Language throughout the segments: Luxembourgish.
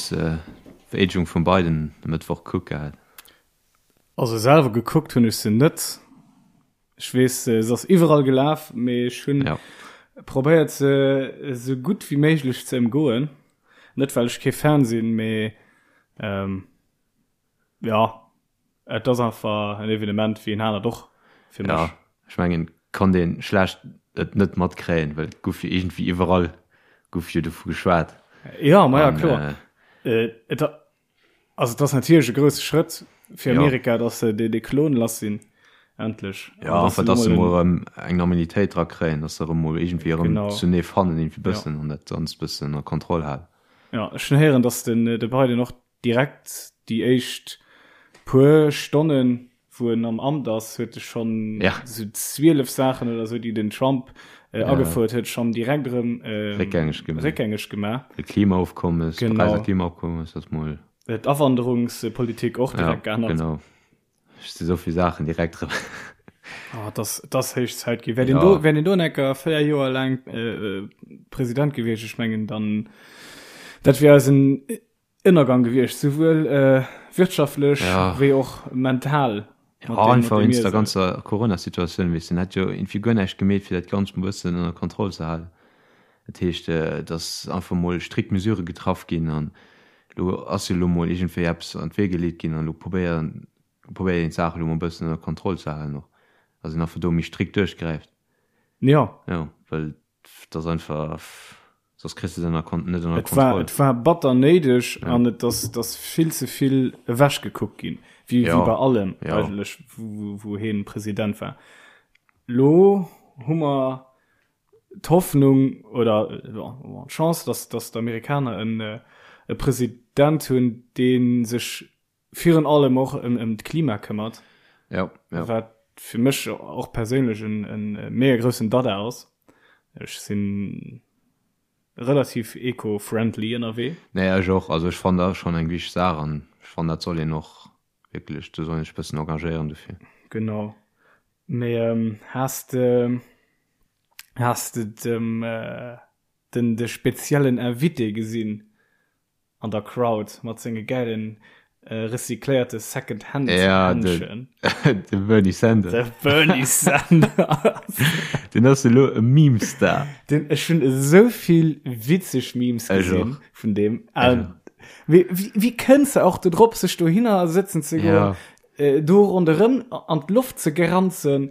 Hues de d'Vereedegung vum Biden e Mëttwoch gekuckt gehat? Also selwer gekuckt hunn ech se net. Ech weess, se ass iwwerall gelaf, mee ech hunn Ja. probéiert se esou gutt wéi méiglech ze ëmgoen. Net well ech kee Fan sinn, mee ähm, ja, et ass einfach en Evenement wéi en anert och fir mech. Ja, ech mengen, konnt een schlecht et net matkréien, well et gouf jo iergendwéi iwwerall gouf jo dovu geschwat. Ja, ma ja, An, kloer. äh, Et, Also et ass natierlech e grousse Schrëtt fir Amerika, datt se dee Klon lass sinn, endlech. Jo, enfin, datt se mol erëm eng Normalitéit dra kréien, datt se erëm mol iergendwéi erëm zunee fannen, iergendwéi bëssen an dat Ganzt bëssen ënner Kontroll halen. Jo, ech hunn héieren, datt den de Biden och direkt déi éischt puer Stonnen wou en am Amt ass, huet e schonn esou 12 Saachen oder esou, déi den Trump agefouert huet, schonn direkt erëm réckgängeg gemaach. De Klimaofkommes, d'Paräiser Klimaofkommes ass mol. D'Awanderungspolitik och direkt geännert. Genau. Ech si souvill Saachen direkt erëm. Oh, et ass, et ass héich Zäit ginn. Wär deen do, wär deen do en Ecker 4 Joer laang President gewiescht, ech mengen dann, dat wier eisen Ënnergang gewiescht, souwuel wirtschaftlech wéi och mental. Jo, einfach wéinst der ganzer Corona-Situatioun, weess de, en hätt jo iergendwéi guer näischt gemeet, fir dat Ganzt mol e bëssen ënner Kontroll ze halen. Dat heescht, et ass einfach mol strikt Mesurë getraff ginn an elo ass jo elo mol iergendwéi eppes an d'Wee geleet ginn an elo probéieren, probéiert een d'Saach elo mol e bëssen ënner Kontroll ze halen och, dass een einfach do méi strikt duerchgräift. Jo. Jo, well Et ass einfach, soss kriss de se ënner Kon-, net ënner Et war, Kontroll. et war batter néideg an et ass, et ass vill ze vill ewechgekuckt ginn, wéi, wéi Ja, bei allem ja. eigentlech, wou, wou hien President war. Lo hu mer d'Hoffnung oder, jo, d'Chance, dass, dass d'Amerikaner en, e President hunn, dee sech virun allem och ëm d'Klima këmmert, ja, ja. wat fir mech och perséinlech en, en mega groussen Dada ass. Ech sinn relativ eco-friendly ënnerwee. Nee, ech och. Also ech fannen dat schonn eng wichteg Saach an ech fannen dat soll een och wierklech, do soll een sech e bëssen engagéieren dofir. Genau. Mee ähm, has de, has de dem, äh, den, de speziellen Invité gesinn? An der Crowd mat senge gäilen recycléierte Second Hand Händschen. Ja, de Bernie Sanders. De Bernie Sanders. Den ass elo e Meme-Star. Den, ech hunn esou vill witzeg Memes gesinn vun deem. Wéi, wéi kënns de och do drop, sech dohinner sëtzen ze goen, ja. do ronderëm an d'Loft ze geranzen,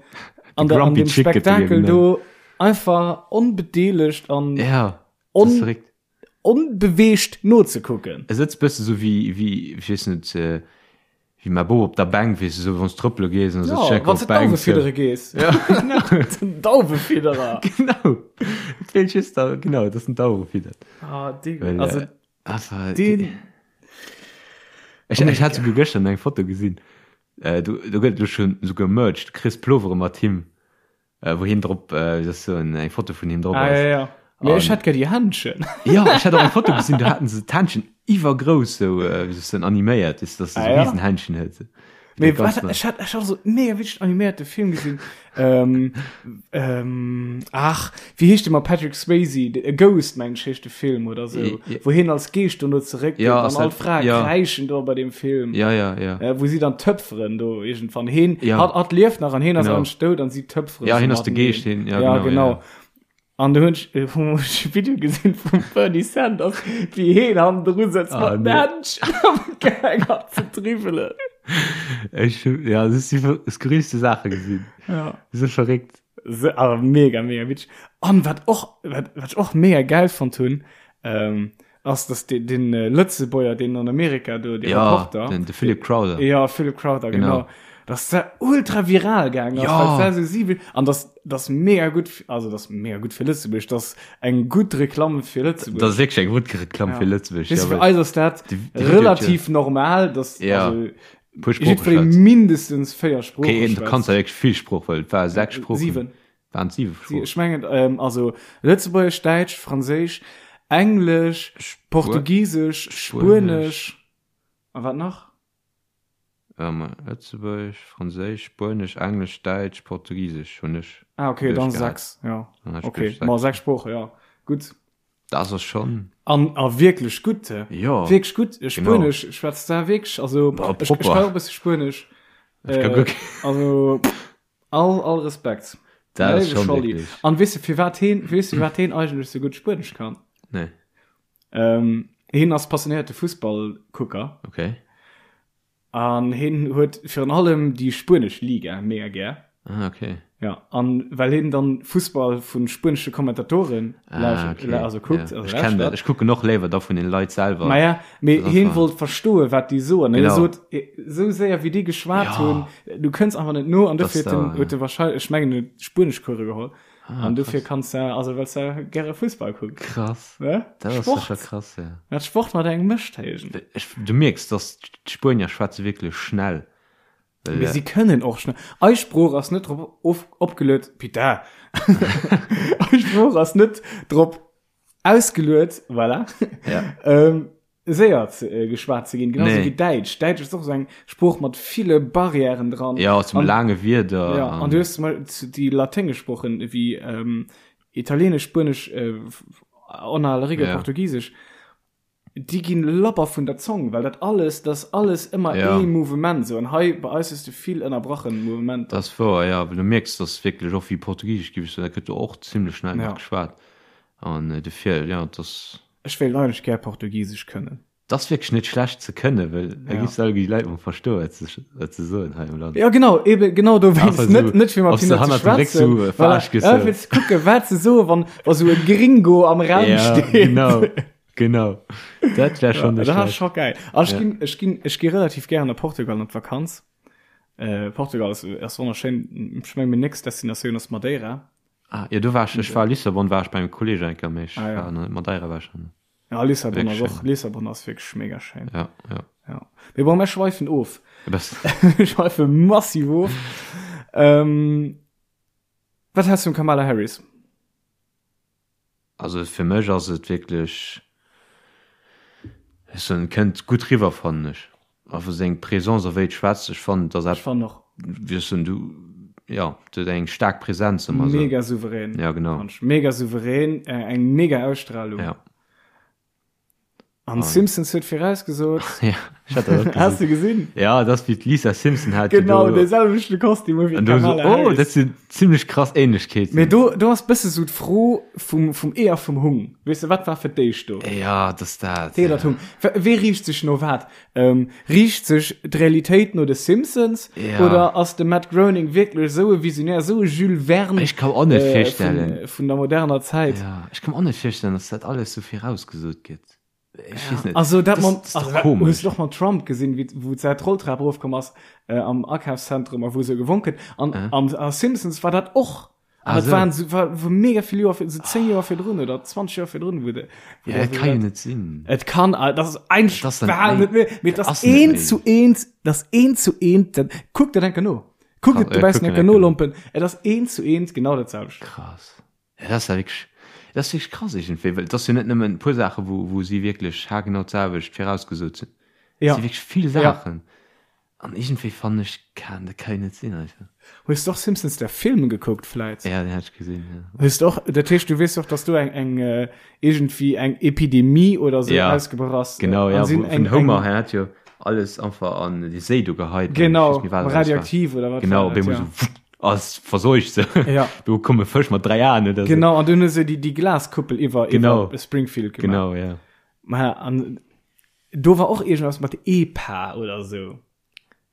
an, der, an dem Spektakel do einfach onbedeelegt an ja, on, onbeweegt nozekucken. E sëtzt bësse sou wéi, wéi, ech weess net, wéi mäi Bop op der Bänk, weess de, sou wann s trëppele gees an da sëtzt Jo, wann s de d'Dauwe fiddere gees. Ja, genau. Den Dauwefidderer. Genau. Et feelt just da, genau, dass en d'Dauwe fiddert. Ah, dee, Well, also einfach, deen. Ech, ech hat souguer gëschter eng Foto gesinn, do, do gëtt et elo schonn souguer Merch, du kriss Plovere mat him. Äh, wou hien drop, äh, wéi soll ech soen, eng Foto vun him drop Ah, ass. ja, ja. Mee ech An- hätt gär déi Händchen. Ja, ech hat och eng Foto gesinn, do haten se d'Händchen iwwergrouss sou, äh, wéi soll ech soen, animéiert, weess de, dass se Ah, sou ja? Riesenhändchen huet. Mee Ganz wat, nett. ech hat, ech hat so mega witzeg animéierte Film gesinn. ähm, ähm, ach, wéi heescht de mat Patrick Swayze? A Ghost, meng ech, heescht de Film oder sou. Ja. Wou hien als Geescht dono zeréckgeet Ja, an ass all dat- d'Frae ja. kräischen do bei dem Film. Ja, ja, ja. Äh, wou si dann töpferen do irgendwann heen Ja. hat, hat lieft nach an heen ass Genau. eigentlich dout an si töpferen Ja, so hien ass de mateneen. Geescht, hien- ja, ja genau, genau. ja. An du hunn ech äh, hu ech e Video gesinn vum Bernie Sanders, wéi heen hannendru sëtzt Ah, mat nee. Händchen am gaang ass ze dribbelen. Ech, ja, das si skurrilste Saache gesinn. Ja. So verréckt. Se, awer mega, mega witzeg. An wat och, wat, wat ech och mega geil fonnt hunn, ähm, ass, dass den, den äh, Lëtzebuerger, deen an Amerika do, de Ja, Reporter, den, de Philip Crowther. Ja, Philip Crowther, genau. Genau. Dass dat ultra viral gaang ass, Ja. well dat so siwe, an das, das mega gutt, also das mega gutt fir Lëtzebuerg, das eng gutt Reklamm fir Lëtzebuerg. Das ass wierklech eng gutt Reklamm fir Lëtzebuerg. Weess Ja, du, fir well eis ass dat déi- déi Video relativ normal, dass, Ja. also, puer Sprooche jiddweree schwätzt. mindestens 4 Sprooche Okay, du schwätzt. kanns ja wierklech vill Sprooch, well et war 6 Sproochen. Siwen. Waren et 7 Sproochen? Ech mengen, ähm, also Lëtzebuergesch, Däitsch, Franséisch, Englesch, Portugisesch, Spuenesch a wat nach? Ähm, Lëtzebuergesch, Franséisch, Spuenesch, Englesch, Däitsch, Portugisesch hunn ech Ah, okay, dann duerchgehat. 6, ja. Dann hat ech Okay, duerch ma 6. 6 Sprooche, ja. Gutt. Dat ass schonn. An a wierklech gutt. Jo. Wierklech gutt. Spuenesch schwätzt da wierklech, also Bah, ech, ech propper. kann och e bësse Spuenesch. Ech ka guer kee. Also all, all Respekt. Dat ass Léiwe schonn Scholli. wierklech. An weess de firwat heen, weess de firwat heen eigentlech sou gutt Spuenesch kann? Nee. Ähm, heen ass passionéierte Fussballkucker. Okay. An heen huet virun allem déi spuenesch Liga mega gär. Ah, okay. Ja, an well heen dann Fussball vun spuenesche Kommentatoren ah, okay. also kuckt. Ja. Also Ech kenn dat. Ech kucken och léiwer da vun den Leit selwer. Ma ja, mee Das ass heen wahr. wollt verstoen, wat déi soen. Hie Genau. sot, esou séier wéi déi geschwat Ja. hunn, du kënns einfach net no. An Das dofir huet da, en, huet ja. e wahrscheinlech, ech mengen, en huet Spueneschcourse geholl. Ah, An dofir krass. kanns de, also well s de gäre Fussball kucks. Krass. Ne? Dat ass Sport. sécher krass, ja. Wat Sport mat engem mécht, héijen. Ech, du mierks, dass d'Spuenier schwätze wierklech schnell. Well, Mee si kënnen och schnell. Eis Sprooch ass net drop of, opgeluet, putain. Eis Sprooch ass net drop ausgeluet, voilà. Ja. ähm, séier ze, äh, geschwat ze ginn, genauso Nee. wéi Däitsch. Däitsch ass och esou eng Sprooch mat ville Barrièren dran. Ja, zum An- laange Wierder. Ja, an du hues zum Beispiel zu- déi laténgesch Sproochen ewéi ähm, Italieenesch, Spuenesch, äh, en aller Regel Ja. Portugisesch, déi ginn labber vun der Zong, well dat alles, dat ass alles ëmmer Ja. ee Mouvement sou. An hei bei eis hues du vill ënnerbrachen Mouvementer. Dat ass wouer, ja, well du mierks, dass wierklech och wéi Portugisesch gi, dat gëtt jo och zimlech schnell Ja. nach geschwat. An äh, dofir, ja, dat Ech wéilt eigentlech gär Portugisesch kënnen. Dat ass wierklech net schlecht ze kënnen, well da Ja. giffs du alleguer déi Leit mol verstoen, wat se, wat se soen hei am Land. Ja genau, eben genau dowéinst. Einfach Net, so, net fir mat ob se hinne ze hannert dem Réck schwätzen. so, äh, Voilà. verarscht gëss, Ja, so. fir ze kucken, wat se soen, wann, wa sou e Gringo am Raum Ja, steet. genau, genau. Dat wär schon Ja, net dat ass schlecht. scho geil. An ech Ja. ginn, ech ginn, ech gi relativ gären a Portugal an d'Vakanz. Äh, Portugal ass, ass wonnerschéin. Ech meng, meng nächst Destinatioun ass Madeira. Ah, jo, do war ech, ech war a Lissabon, war ech bei engem Kolleg eng Kéier, mee ech Ah, ja. war nach net, Madeira war ech nach net. Ja, Lissabon ass Wirklich och, schön. Lissabon ass wierklech mega schéin. Ja, ja. Ja. Mee bon, mir schweifen of. E bëssen. Mir schweife massiv of. Ähm, wat häls du vum Kamala Harris? Also fir mech ass et wierklech, ech soen, et kënnt gutt riwwer, fannen ech. Einfach seng Présence a wéi et schwätzt, ech fannen, et ass Ech fannen och. Wéi ech soen, du, jo, et huet eng staark Präsenz ëmmer esou. Mega souverän. Ja, genau. Fand ech. Mega souverän, eng mega Ausstrahlung. Ja. An Simpsons huet virausgesot. Ja, ech hat dat och Has gesinn. du gesinn? Ja, dat ass wéi d'Lisa Simpson hat jo Genau, do. dee selwechte Kostüm wéi An do so, d'Kamala oh, Harris. dat sinn zimmlech krass Ähnlechkeeten. Mee do, do ass bësse sou d'Fro vum, vum Ee a vum Hung. Weess de, wat war fir d'éischt do? Ja, dat ass dat. D'Ee oder d'Hung? Wee riicht sech no wat? Ähm, riicht sech d'Realitéit no de Simpsons? Ja. Oder ass de Matt Groening wierklech esou e Visionär, esou e Jules Verne Ech kann och net äh, virstellen. vun, vun der moderner Zäit? Ja, ech kann mer och net virstellen, dass dat alles sou virausgesot gëtt. Ech weess net. Also dat Das- man, das ist doch also, dat, komisch. hues du och mam Trump gesinn, wéi wou d'Säit d'Rolltrap erofkomm ass äh, am Akafszentrum a wou se gewonk huet. An Äh. an a Simpsons war dat och. An Ah, dat so. waren so, war, war mega vill Joer, sou 10 Joer virdrun oder 20 Joer virdrun, wou de, wou Ja, der dat so kann jo dat- net sinn. Et kann, äh, das ist ein Das ass dann Wahl méi- net méi, mee das ass ass net eent méi. zu eent, das eent zu eent, dat, kuck dat enker no. Kuck Krass, et ja, dobaussen kucken enker enker no, no. Lompen. Et ass eent zu eent genau dat selwecht. Krass. Ja, dat ass ja wierklech, dat ass wierklech krass iergendwéi, well et ass jo net nëmmen e puer Saachen, wou, wou si wierklech haargenau d'selwecht virausgesot sinn. Et Ja. si wierklech vill Ja. Saachen. An iergendwéi fannen ech, kann, dat ka jo net sinn einfach. Hues du och Simpsons der Film gekuckt vläit? Ja, den hat ech gesinn, ja. Hues du och, dat heescht du weess och, dass do eng, eng äh, iergendwéi eng Epidemie oder sou Ja, ausgebrach ass. Genau, An ja, sinn wou, eng, vun Homer, eng, hien hat jo alles einfach an déi Séi do geheit. genau, Ich weess méi, wat alles war. radioaktiv oder wat Genau, war op dat, eemol ja. so wutt, ass verseucht so. Ja. Do komme Fësch mat 3 Aen oder so. Genau, an dunn hu se déi, déi Glaskuppel iwwer, Genau. iwwer Springfield gemaach. Genau, ja. Ma, an do war och iergendwas mat EPA oder sou.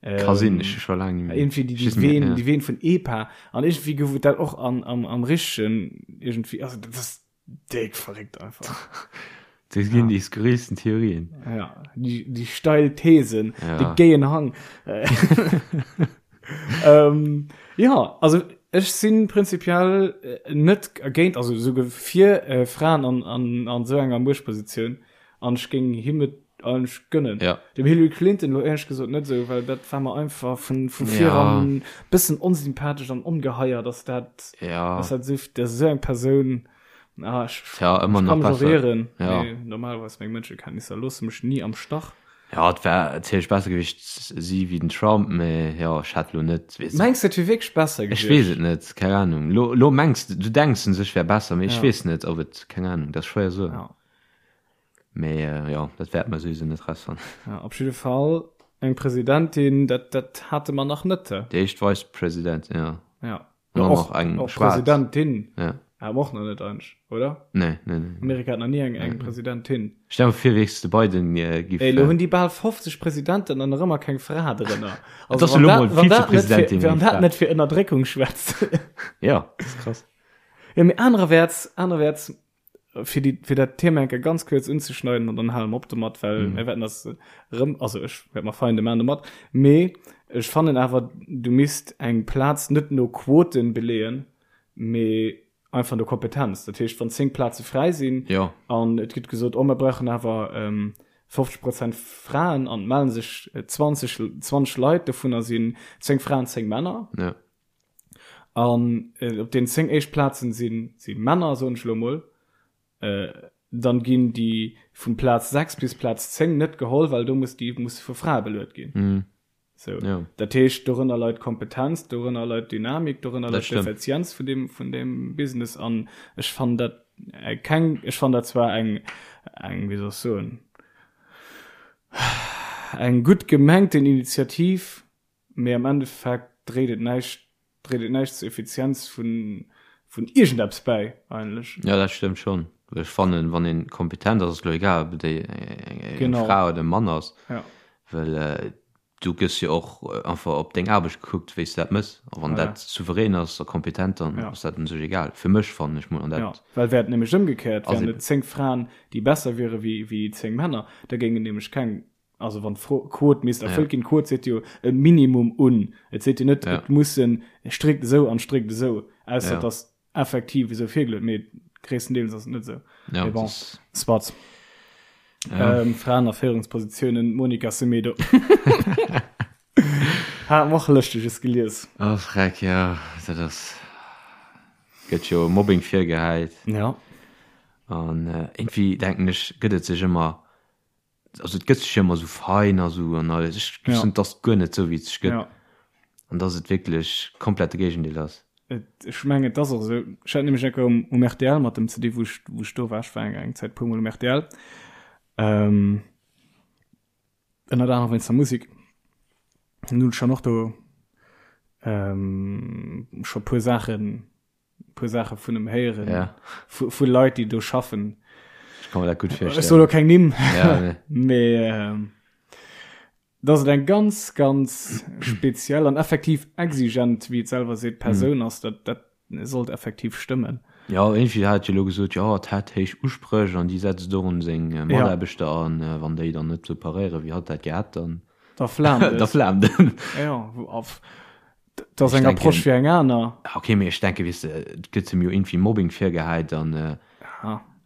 Ka sinn, ech hu scho laang net méi. Irgendwie déi, Ech déi weess net méi, Ween, ja. déi Ween vun EPA. An irgendwie gouf et dat och an, am, am richtegen, irgendwie, also dat ass déck verréckt einfach. Do ginn déi skurrilsten Theorien. Ja, déi, déi steil Thesen, Ja. de géien Hang. ähm, ja, also ech sinn prinzipiell äh, net géint, also souguer fir äh, Fraen an, an, an sou enger Muechtpositioun. An ech géing him et eigentlech gönnen. Ja. Dem Hillary Clinton lo éierlech gesot net esou, well dat war mer einfach vun, vu Ja. viran bëssen onsympathesch an ongeheier, dass dat, Ja. dass dat esou, dass esou eng Persoun, ah, ech, Tja, ëmmer ech nach kann mech och besser. ieren, Ja. mee normalerweis meng Mënschekenntnisser loosse mech ni am Stach. Jo, et wär natierlech besser gewiescht si wéi den Trump, mee jo, ech hätt lo net, weess Mengs de et wier wierklech besser Ech weess et net, keng Ahnung. Lo, lo mengs de, du denks un sech wär besser, mee ech weess net, ob et, keng Ahnung, dat ass schwéier soen. Ja. Mee jo, dat wäerte mer souwisou net rausfannen. Ja, op jidde Fall eng Presidentin, dat, dat hate mer nach net. Déi éischt Vice Presidentin, jo. Ja. An dann och eng och schwaarz. Presidentin. Ja. Hate mer och nach net eigentlech, oder? Nee, nee, nee. Amerika hat nach ni eng, eng Presidentin. Stell mer vir, wéi de Biden giff. Ey, lo hunn déi bal 50 Presidenten an nach ëmmer keng Fra drënner. Et ass elo mol Vizepresidentin. Wann dat net fir Ënnerdréckung schwätzt. Ja, dat ass krass. Ja, mee anererwäerts, anererwäerts, fir déi, fir dat Thema eng Kéier ganz kuerz unzeschneiden an dann hale mer op domat, well mir wäerten das erëm, also ech wäert mer Feinde maachen domat, mee ech fannen awer, du misst eng Plaz net no Quoten beleeën, mee einfach no Kompetenz. Dat heescht, wann 10 Plaze fräi sinn Jo. an et gëtt gesot, oh mer brauchen awer 50 Prozent Fraen an et mellen sech 20, 20 Leit, dovunner sinn 10 Fraen, 10 Männer. Ja. An op den 10 éischt Plazen si si Männer, soen ech elo emol. Dann ginn déi vun Plaz 6 bis Plaz 10 net geholl, well do muss déi musse vu Frae beluet ginn. Mm. Sou. Ja. Dat heescht, dorënner leit Kompetenz, dorënner leit Dynamik, dorënner Dat leit stëmmt. d'Effizienz vun deem, vun deem Business. An ech fannen dat keng, ech fannen dat zwar eng, eng, wéi soll ech soen, eng gutt gemengten Initiativ, Mee am Endeffekt dréit et näischt, dréit et näischt zur Effizienz vun, vun iergendeppes bäi eigentlech. Jo, dat stëmmt schonn. Ech fannen, wann een kompetent ass, ass et elo egal, ob et eng Fra oder e Mann ass, well du gëss jo och einfach op deng Aarbecht gekuckt, wéi s de dat mëss. A wann dat souverän ass a kompetent, dann ass dat un sech egal, fir mech, fannen ech mol. An dat. Jo, well wär et nämlech ëmgekéiert, wären et 10 Fraen, déi besser wiere wéi 10 Männer, da géingen nämlech keng Also wann d'Quot misst erfëllt ginn, d'Quot seet jo e Minimum un. Et seet jo net, et mussen strikt esou an strikt esou, ausser et ass effektiv esou virgeluet, mee gréisstendeels ass et net esou. Mee bon, soit. Fraen a Féierungspositiounen, Monica Semedo. Hat mer och Lëschteges gelies. Oh Freck, jo, dat ass, gëtt jo Mobbing virgehäit. Ja. An iergendwéi denken ech, gëtt et sech ëmmer also et gëtt sech jo ëmmer esou fein a sou an alles. Ech ja. et ass guer net sou wéi et sech gëtt. Ja. An dass et wierklech komplett de Géigendeel ass. Et, ech mengen et ass och esou. Ech hat nämlech enker um, um RTL mat dem CD, wou ech, wou ech do war, ech war eng, eng Zäit puer mol um RTL. Ähm, ënnert anerem wéinst der Musik. An hunn ech dann och do ähm, scho puer Saachen puer Saache vun em héieren ja. vu, vu Leit déi do schaffen Ech kann mir dat gutt virstellen. Ech soll lo keng Nimm ja, nee. mee ähm, dass et eng ganz ganz speziell an effektiv exigent wéi et selwer seet Persoun mm. ass dat dat sollt effektiv stëmmen. Ja irgendwie hat jo lo gesot ja et hätt héich Uspréch an déi setzt och un seng äh, Mataarbechter ja. an äh, wann déi dann net sou paréiere wéi hatt dat gehat dann da flaamt da flaamt en. Ja, auf Dat ass eng Approche wéi eng aner. Ok, mee ech denken, weess de, et gëtt em jo iergendwéi Mobbing virgehäit an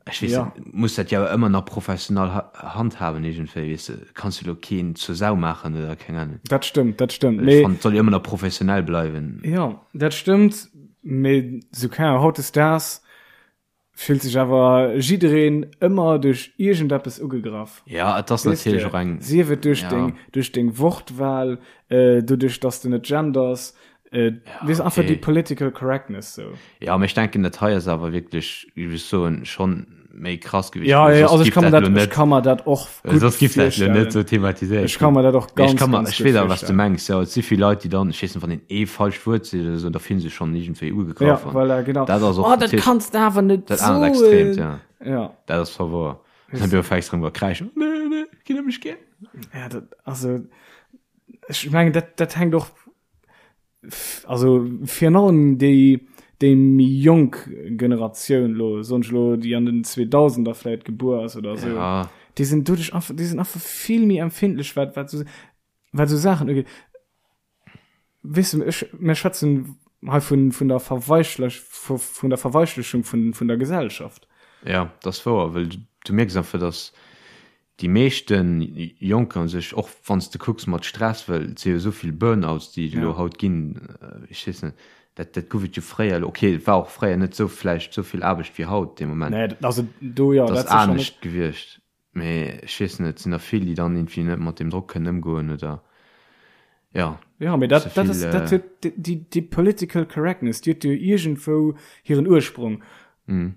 ech weess net, muss dat jo awer ëmmer nach professional handhaben iergendwéi, weess de, kanns jo elo keen zur Sau maachen oder keng Ahnung. Dat stëmmt, dat stëmmt, mee. Ech fannen, et soll jo ëmmer nach professionell bleiwen. Jo, dat stëmmt, mee sou, keng Ahnung, hautdesdaags Fillt sech awer jiddereen ëmmer duerch iergendeppes ugegraff. Ja, et ass natierlech och eng. Sief et duerch deng, duerch deng Wortwahl, doduerch dass de net genders, weess einfach déi political correctness sou. Jo, mee ech denken dat hei ass awer wierklech, géif ech soen, schonn méi krass gewiescht. Ja, ja, also ech kann mer dat, ech kann mer dat och gutt Soss giff dat lo net sou thematiséiert Ech kann mer dat och ganz, ganz gutt Ech weess awer wat s de mengs, jo. Et si vill Leit, déi dann, ech weess net, wann een ee falscht Wuert seet oder sou, da fillen se sech schonn iergendwéi ugegraff. Ja, voilà, genau. Dat ass och Oh, dat kanns de awer net soen! Dat anert Extreemt, ja. Ja. Dat ass zwar wouer. Dann du fängst erëm u kräischen, Nee, nee, ginn ëm mech gär. Ja, dat, also, ech mengen, dat, dat hänkt och Also virun allem déi déi méi jonk Generatioun lo, soen ech lo, déi an den 2000er vläit gebuer ass oder esou, Ja. déi sinn doduerch einfach, déi sinn einfach vill méi empfindlech wat wat esou wat esou Saachen ugeet. Weess de, ech, mir schwätzen hei vun vun der Verweichlech vu vun der Verweichlechung vun vun der Gesellschaft. Ja, dat ass wouer, well du mierks einfach, dass Déi meeschten Jonker un sech, och wann s de kucks mat Stress, well et si jo esou vill Burnouts, déi et elo haut ginn, ech weess net, dat dat gouf et jo fréier elo, okay, et war och fréier net esou vläicht esou vill Aarbecht wéi haut dee Moment, Nee, also do jo, dat ass anescht gewiescht. Mee ech weess net, et sinn der vill, déi dann irgendwie net mat deem Drock kënnen ëmgoen oder ja. Ja, mee dat, dat ass, dat huet déi, déi Political Correctness, déi huet jo iergendwou hiren Ursprung. Mm.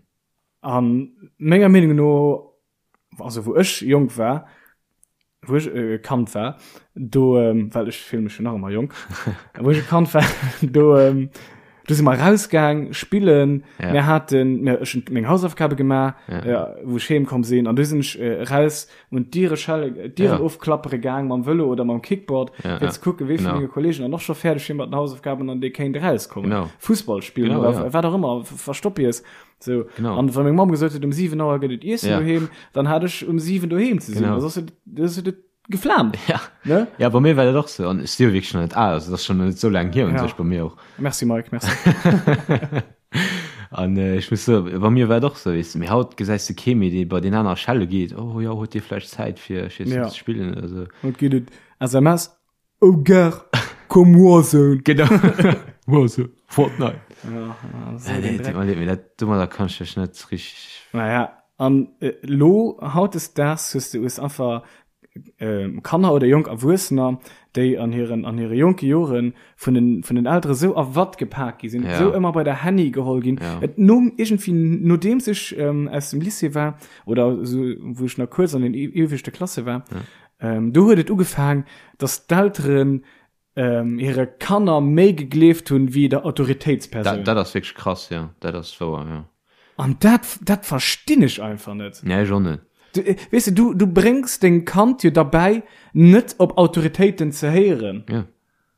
A menger Meenung no, also wou ech jonk war, wou ech e Kand war, do, well ech fillen mech jo nach ëmmer jonk, wou ech e Kand war, do, do si mer rausgaang spillen, Ja. mir haten, mir, ech hunn meng Hausaufgabe gemaach, Ja. ja, wou ech heem komm sinn, an du sinn ech raus un d'Diere schelle, d'Dieren Ja. ofklappere gaang mam Vëlo oder mam Kickboard, Ja, fir ja. ze kucken, wee vun Genau. menge Kollegen dann och scho fäerdeg wier mat den Hausaufgaben an dee kéint erauskommen. Genau. Fussball spillen Genau, oder ja. wat och ëmmer, Verstoppies. So. Genau. An wann meng Mamm gesot huet, um 7 Auer gëtt et Iessen Ja. doheem, dann hat ech um 7 doheem ze sinn. Genau. Also, das huet et geflammt. Ja. Ne? Ja, bei mir war dat och sou. An ech si jo wierklech nach net al, also dat ass schonn net sou laang hier un Ja. sech bei mir och. Merci Mike, merci. An äh, ech muss soen, bei mir war et och sou, weess de, mee haut gesäis de kee méi, dee bei deen aner schelle geet, oh jo, huet dir vläicht Zäit fir, ech weess Ja. net, ze spillen oder sou. Haut geet et SMS, Oh gar, komm Warzone. Genau. Warzone, Fortnite. Ja, so Ja, den nee, Dreck. tut mir leid, mee dat, domadder kann ech mech net richteg. Naja, an äh, lo hautdesdaags hues du hues einfach äh, Kanner oder jonk Erwuessener, déi an hiren an hire jonke Joren vun den vun den Eltere sou a Watt gepak gi sinn, Ja. sou ëmmer bei der Handy geholl ginn. Ja. Et nom iergendwéi nodeems ech ähm, aus dem Lycée war oder sou wou ech nach kuerz an den ieweschte Klasse war, Ja. Ähm, do huet et ugefaang, dass d'Elteren ähm, hire Kanner méi gegleeft hunn wéi der Autoritéitspersoun. Dat, dat ass wierklech krass, ja. Dat ass wouer, ja. An dat, dat verstinn ech einfach net. Nee, ech och net. Du, äh, weess de, du, du bréngs deng Kand jo derbäi, net op Autoritéiten ze héieren. Ja.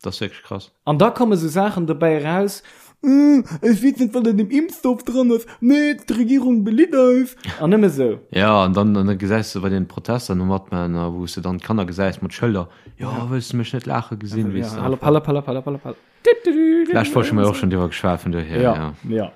Dat ass wierklech krass. An da komme sou Saachen dobäi eraus, Äh, ech weess net, wat an deem Impfstoff dran ass, nee, d'Regierung belitt eis. An nëmme sou. Ja, an dann, an da gesäis de bei den Protester no matman, a wou s de dann d'Kanner gesäis mat Schëlder, Jo, wëlls de mech net laache gesinn, weess de. Hallop, hallop, hallop, hallop, hallop, hallop. D'lescht Woch hu mer jo och schonn driwwer geschwat, vun dohier, Ja, ja. ja.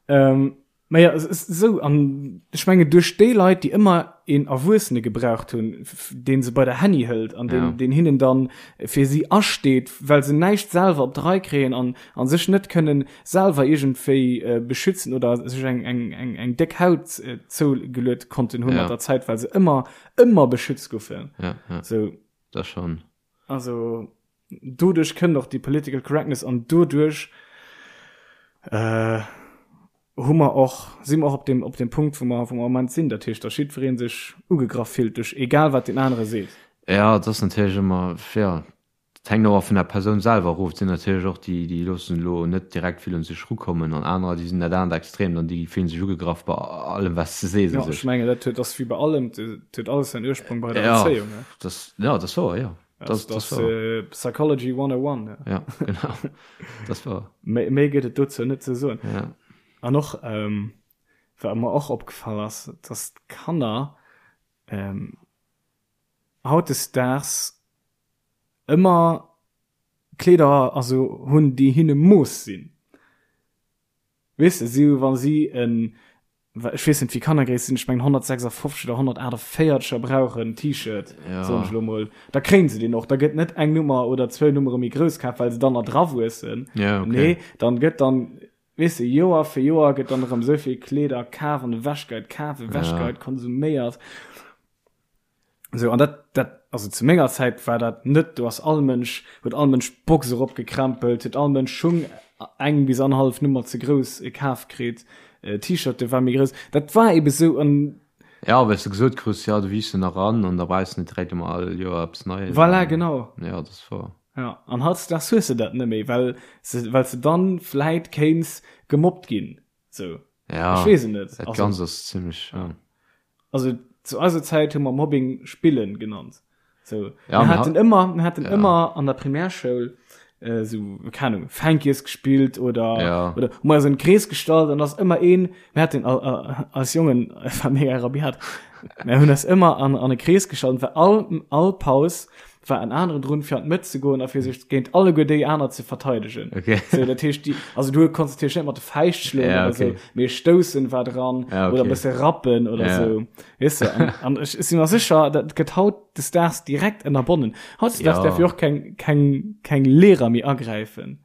Ähm, Naja, es ist esou, an ech mengen duerch déi Leit, déi ëmmer een Erwuessene gebraucht hunn, dee se bei der Hänni hëlt an deen, Ja. deen hinnen dann fir si asteet, well se näischt selwer op d'Rei kréien an, an sech net kënnen selwer iergendwéi äh, beschützen oder sech eng, eng, eng, eng déck Haut äh, zougeluet konnten hunn Ja. mat der Zäit, well se ëmmer, ëmmer beschützt goufen. Ja, ja, Sou, dat schonn. also doduerch kënnt och déi Political Correctness an doduerch äh, hu mer och, si mer och op dem, op dem Punkt, wou mer, wou mer am Moment sinn, dat heescht, datt jiddweree sech ugegraff fillt duerch egal wat deen anere seet. Ja, et ass natierlech ëmmer, ja, et hänkt och vun der Persoun selwer erof. Et sinn natierlech och déi, déi loossen elo net direkt vill un sech erukommen an anerer, déi sinn dat anert Extrem, dann déi fillen sech ugegraff bei allem, wat s de sees Ja, u ech sech. mengen, dat huet, ass wéi bei allem, et huet alles säin Ursprong bei der Ja, Erzéiung, ne? dat, ja, dat ass wouer, jo. Das, das, das äh, Psychology 101. Ja, ja genau. Das war. Méi, méi gëtt et dozou net ze soen. Ja. An och, ähm, wat mer och opgefall ass, dass d'Kanner ähm, hautdesdaags ëmmer Kleeder also hunn, déi hinne Mooss sinn. Weess de, si hu wa si en, ech weess net wéi Kannergréisst sinn, ech mengen 156 oder 148 er brauchen T-Shirt, soen ech elo mol, da kréien se deen och. Da gëtt net eng Nummer oder zwou Nummere méi grouss kaf, well se dann erdrawuessen. Nee, dann gëtt dann, weess de, Joer fir Joer gëtt dann erëm esou vill Kleeder kaf an ewechgeit, kaf, ewechgeit, konsuméiert. Sou, an dat, dat, also zu menger Zäit war dat net, do ass all Mënsch, huet all Mënsch d'Box eropgekrempelt, huet all Mënsch Schung eng bis annerhallef Nummer ze grouss kaf kritt, T-Shirte war méi grouss, dat war ebe sou an. Ja, well s de gesot krus, jo, du wiisst jo nach eran an da brauchs de net direkt ëmmer all Joer eppes Neies. Voilà, genau. Jo, dat ass wouer. Ja, an hautdesdaags hues de dat net méi, well se, well s de dann vläit kéints gemobbt ginn, sou. Ja, Ech weess et net. Dat Ganzt ass zimmlech, ja. Also zu eiser Zäit hu mer Mobbing spillen genannt. So, Ja, mir mir haten ëmmer, mir haten ja. ëmmer an der Primärschoul äh, so, keine Ahnung, Fänkies gespillt oder, Ja. oder hu mer eis an den Krees gestallt an ass ëmmer een, mir haten al, al, als Jongen, war mega rabiat, mir hunn eis ëmmer an, an e Krees gestallt, well all, all Paus war en aneren drun fir an d'Mëtt ze goen a fir sech géint alleguer déi aner ze verteidegen. Okay. So, dat heescht, déi, also du konntest natierlech net mat de Fäischt schloen Ja, oder okay. sou, mee stoussen war dran Ja, oder okay. e bësse rappen oder Ja. sou. Weess de, an, an ech si mer sécher, dat gëtt hautdesdaags direkt ënnerbonnen. Hautdesdaags Ja. däerf jo och keng, keng, keng Lehrer méi agräifen.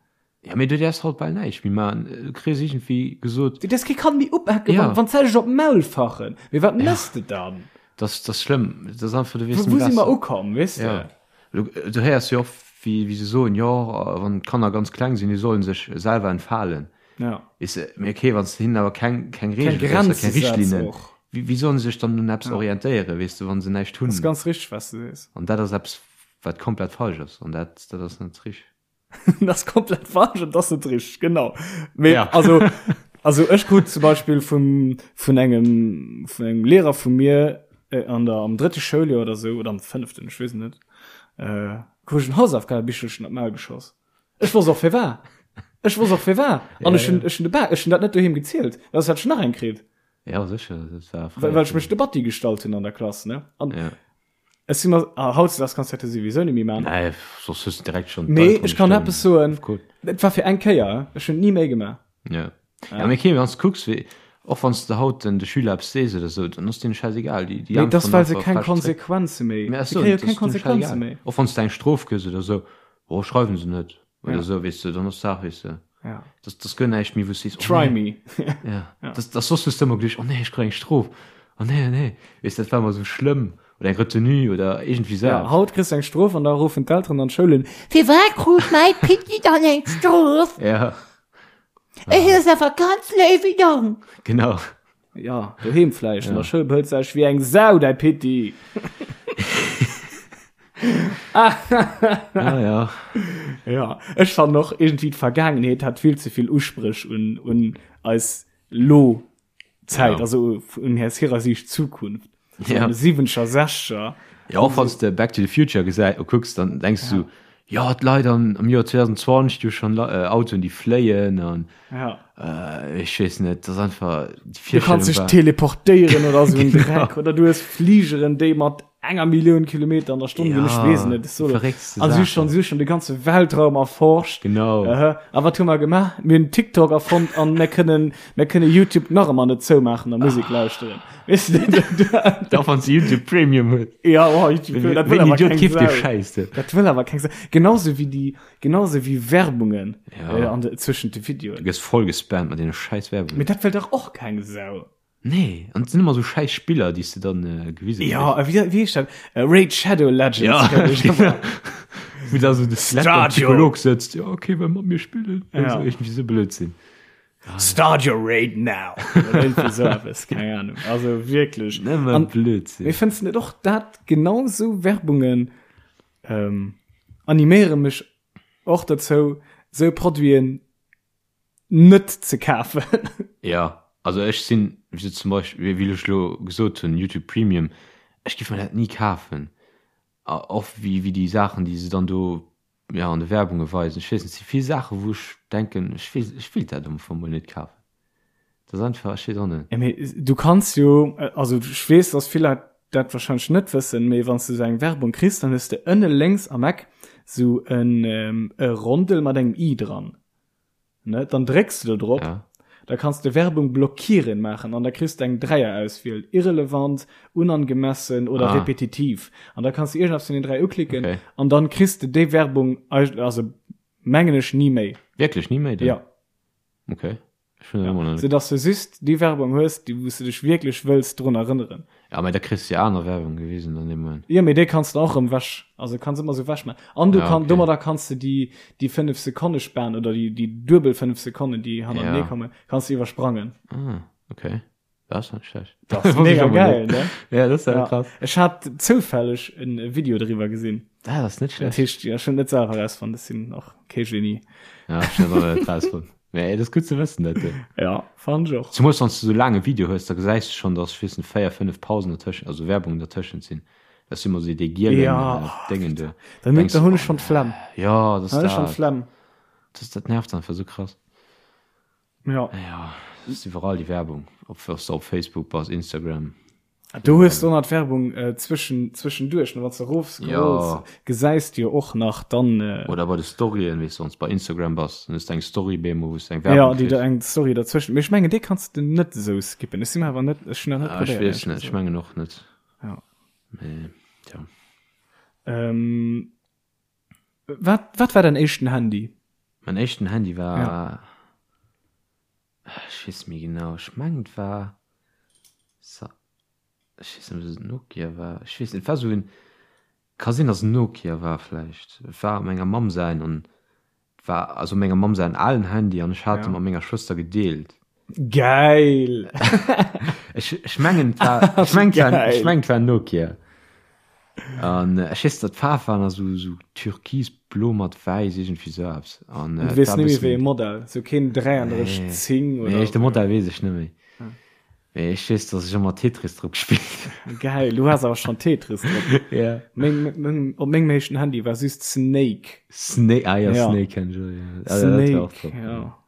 Ja, mee du däerfs haut bal näischt méi maachen. Du kriss iergendwéi gesot. Du däerfs kee Kand méi upaken, Ja. wann, wann d'Zäit ech op d'Maul fachen. Mee wat mëss de dann? Das, das schlëmm. Das ass einfach, du weess Wou, wou si mer ukomm, weess de? Ja. Du, du héiers jo oft, wéi, wéi se soen, jo, wann d'Kanner ganz kleng sinn, déi sollen sech selwer entfalen. Ja. Weess de, mee okay, wann s de hinnen awer keng, keng Keng Reegele gëss a Grenze keng setz Richtlinnen, och. wéi, wéi sollen se sech dann un eppes Ja. orientéieren, weess de, wann se näischt Das hunn? ganz richteg, was du sees. An dat ass eppes, wat komplett falsch ass. An dat, dat ass net richteg. das ist komplett falsch und das ist richtig genau Mee, ja. also also ech krut zum Beispiel vum vun engem vun engem Lehrer vu mir äh, an der am dritte Schouljoer oder so oder am fünften ich weess net äh, krut ich en Hausaufgabebichelchen op d'Maul geschoss ech wosst och firwat ech wosst och firwat an ech hun ech hun de Ba ech hun dat net doheem gezielt well soss hätt ech nach eng kritt ja sicher das war well, well ech mech de Batti gestallt hunn an der Klass ne an ja. Ech si mer, ah, hautdesdaags kanns du dat jo souwisou net méi man. Nee, soss hues du direkt schon Mee ech kann eppes soen, et war fir eng Kéier, ech hunn et ni méi gemaach. Ja. Ja, mee okay, wann s du kucks, wéi, och wann s de haut den de Schüler eppes sees oder sou, dann ass deene schäisegal. Déi, déi Mee et ass, äntweren well se einfach keng frech zréck. Konsequenze méi, Mee ach se sou, kréie jo dat keng ass deene Konsequenze schäisegal. méi. Och wann s de eng Strof gëss oder sou, oh, schreiwen se net. Oder Ja. sou, weess de, dann ass d'Saach, weess de. Ja. Das, das gëtt näischt méi, wou s sees, oh Try nee. me. Ja. Ja. Das, das soss hues du ëmmer geduecht, oh nee, ech kréien eng Strof. Oh nee, oh nee. Weess, dat war ëmmer sou schlëmm. Oder eng Retenue oder iergendwéi sou Ja, eppes. haut kriss du eng Strof an da ruffen d'Elteren an d'Schoul un, Firwat krut mäi Pitti dann eng Strof? Ja, Ech ass awer ganz léiwe Jong. genau. Ja, doheem vläicht. An der Schoul behëlt sech wéi eng Sau, däi Pitti. Ah, ja. Ja, ech fannen och iergendwéi d'Vergaangenheet hat vill ze vill Uspréch un, un eis lo Zäit, Ja. also un aus hirer Siicht Zukunft. So Ja. an de siwwenzeger, sechzeger. Ja, och wann s de Back to the Future gesäi kucks, dann denks du, ja, d'Leit an, am Joer 2020, déi hu schonn äh, Autoen, déi fléien an Ja. äh, ech weess net, dat ass einfach, déi Du kanns Virstellung dech war. teleportéieren oder sou en Genau. Dreck oder du hues Fligeren, déi mat enger Millioun Kilometer an der Stonn ginn, ech Ja, weess et net. So, verréckste also si Saachen. schon, si schon de ganze Weltraum erforscht. Genau. Aha. A wat hu mer gemaach? Mir hunn TikTok erfonnt an mir kënnen, mir kënne YouTube nach ëmmer net zoumaachen a Musek lauschteren. Weess du, Da wann s de YouTube Premium hues. Ja, oh, YouTube Premium, dat wëll Wéi awer Idiot keng keeft dee Sau. Schäiss denn? Dat wëll awer keng Sau. Genauso wéi déi, genauso wéi Werbungen Ja. äh, an de, zwëschent de Videoen. Du gëss voll gespammt mat deene schäiss Werbungen. Mee dat wëll dach och keng Sau. Nee, an et sinn ëmmer esou schäiss Spiller, déi s de dann äh, gewise Ja, äh, wéi, wéi heescht dat? Äh, Raid Shadow Legends. Ja, glaub ich. genau. Wou da so de Skelett beim Stadio. Psycholog sëtzt. Ja, okay, well mat mir spillen. Ja. So, irgendwie so Blödsinn. Start your raid now. Oder irgendwie so etwas, keine Ahnung. Also wirklich. Nëmme An- Blödsinn. Mee fënns du net och dat genau sou Werbungen ähm, animéiere mech och dozou, sou Produiten net ze kafen? Ja, also ech sinn, wéi se zum Beispill, wéi ech elo gesot hunn, YouTube Premium, ech géif mer dat ni kafen. A och wéi, wéi déi Saachen, déi se dann do, ja, an de Werbunge weisen. Ech weess net, et si vill Saachen, wou ech denken, ech weess, ech wéilt dat am Fong mol net kafen. Dat ass einfach, ech weess och net. Ja, mee du kanns jo, also ech weess, dass vill Leit dat wahrscheinlech net wëssen, mee wann s du esou eng Werbung kriss, dann hues de ënne lénks am Eck esou en e Rondel mat engem i dran. Ne, dann drécks du do drop, Ja. da kanns de Werbung blockieren maachen an da kriss de eng Dräierauswiel, irrelevant, unangemessen oder Ah. repetitiv. An da kanns du iergendeppes vun den 3 uklicken Okay. an dann kriss de déi Werbung, also mengen ech, ni méi. Wierklech ni méi dann? Ja. Okay. Ech hunn dat ëmmer nach net. Sou dass du just déi Werbung hues, déi wou s du dech wierklech wëlls drun erënneren. Ja, mä da kriss du jo aner Werbung gewisen an deem Moment. Jo, mee déi kanns du och erëm wech, also kanns ëmmer sou wech maachen. An du Ja, kann, okay. domadder kanns du déi, déi 5 Sekonne Span oder déi, déi duebel 5 Sekonnen, déi hannertenee Ja. kommen, kanns du iwwersprangen. Ah, okay. Dat ass net schlecht. Dat ass mega geil, ne? Ja, dat ass ja. Ja. krass. Ech hat zoufälleg en Video driwwer gesinn. Dat ass net Dat schlecht. heescht, ja, ech hunn net selwer rausfonnt, ech sinn och kee Genie. Ja, ech hunn dat och net rausfonnt. Mee et ass gutt ze wëssen, dat. Ja, fand ech och. Zemools wann s du sou laang e Video hues, da gesäis du schonn, dass, ech weess net, 4, 5 Pausen dertëschent, also Werbung dertëschent sinn. Dat sinn ëmmer sou déi gielen Ja, äh, oh, Déngen do. Dann, Denkst dann du, hunn ech schonn d'Flemm. Ja, dat ass Dann hunn ech schonn dat. d'Flemm. Das, dat nervt einfach sou krass. Ja. Ja, ass iwwerall déi Werbung, ob s de op Facebook bass, Instagram. Do hues du och nach d'Werbung äh, zwëschen, zwëschenduerch, ne? Wann s de erofscrolls, Ja. gesäis du jo och nach dann. Äh, Oder bei de Storyen, weess de, wann s bei Instagram bass, dann hues de eng Story bemol, wou s de eng Werbung ja, déi kriss. da eng Story derzwëschen. Mee ech mengen, déi kanns de net esou skippen. Ech si mer awer net, ech hunn dat net Ah, ech probéiert, weess éierlech net, ech gesot. mengen och net. Ja. Mee, tja. Ähm, wat, wat war däin éischten Handy? Mein éischten Handy war, Ja. ech weess net méi genau, ech mengen et war Sa. Ech weess net, ob et en Nokia war. Ech weess net, et war esou en, ka sinn, datt et en Nokia war vläicht. Et war menger Mamm säin an et war also menger Mamm säin alen Handy an ech hat e mat menger Schwëster gedeelt. Geil! Ech, ech mengen, et war, ech mengen, et war, ech mengen, et war en Nokia. An ech weess, datt d'Faarf war nach esou, esou türkisblo mat wäiss, iergendwéi esou eppes. An du weess net méi wéi e Modell, esou keen 33 10 oder? Nee, de Modell weess ech net méi. Mee ech weess, dass ech ëmmer Tetris drop gespillt hunn. Geil, du has awer schonn Tetris drop. Ja. Meng, meng, op mengem éischten Handy war just Snake. Snake, ah ja, ja. Snake kenn ech och, ja. Ah, Snake, dat war ja.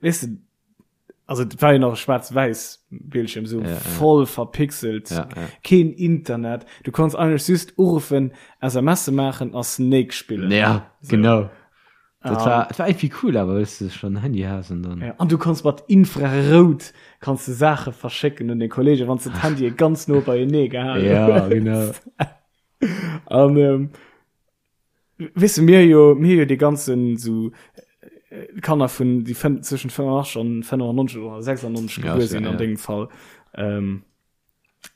Weess de, also et war jo nach e schwaarz-wäiss Bildschirm, sou ja, voll ja. verpixelt, ja, ja. keen Internet. Du konns eigentlech just uruffen, SMSe maachen a Snake spillen. Ja, so. genau. Dat war, dat war irgendwie cool, awer wëss du schon Handy has an dann. Ja, an du konns mat Infrarout kanns du Saache verschécken un den Kollege, wann du d'Handye ganz no beienee gehalen Ja, genau. An ähm, weess du, mir jo, mir jo déi ganzen so äh, Kanner vun déi fënn, zwëschen 85 an 95 oder 96 Ja, gebuer so, sinn an ja. dengem Fall. Ähm,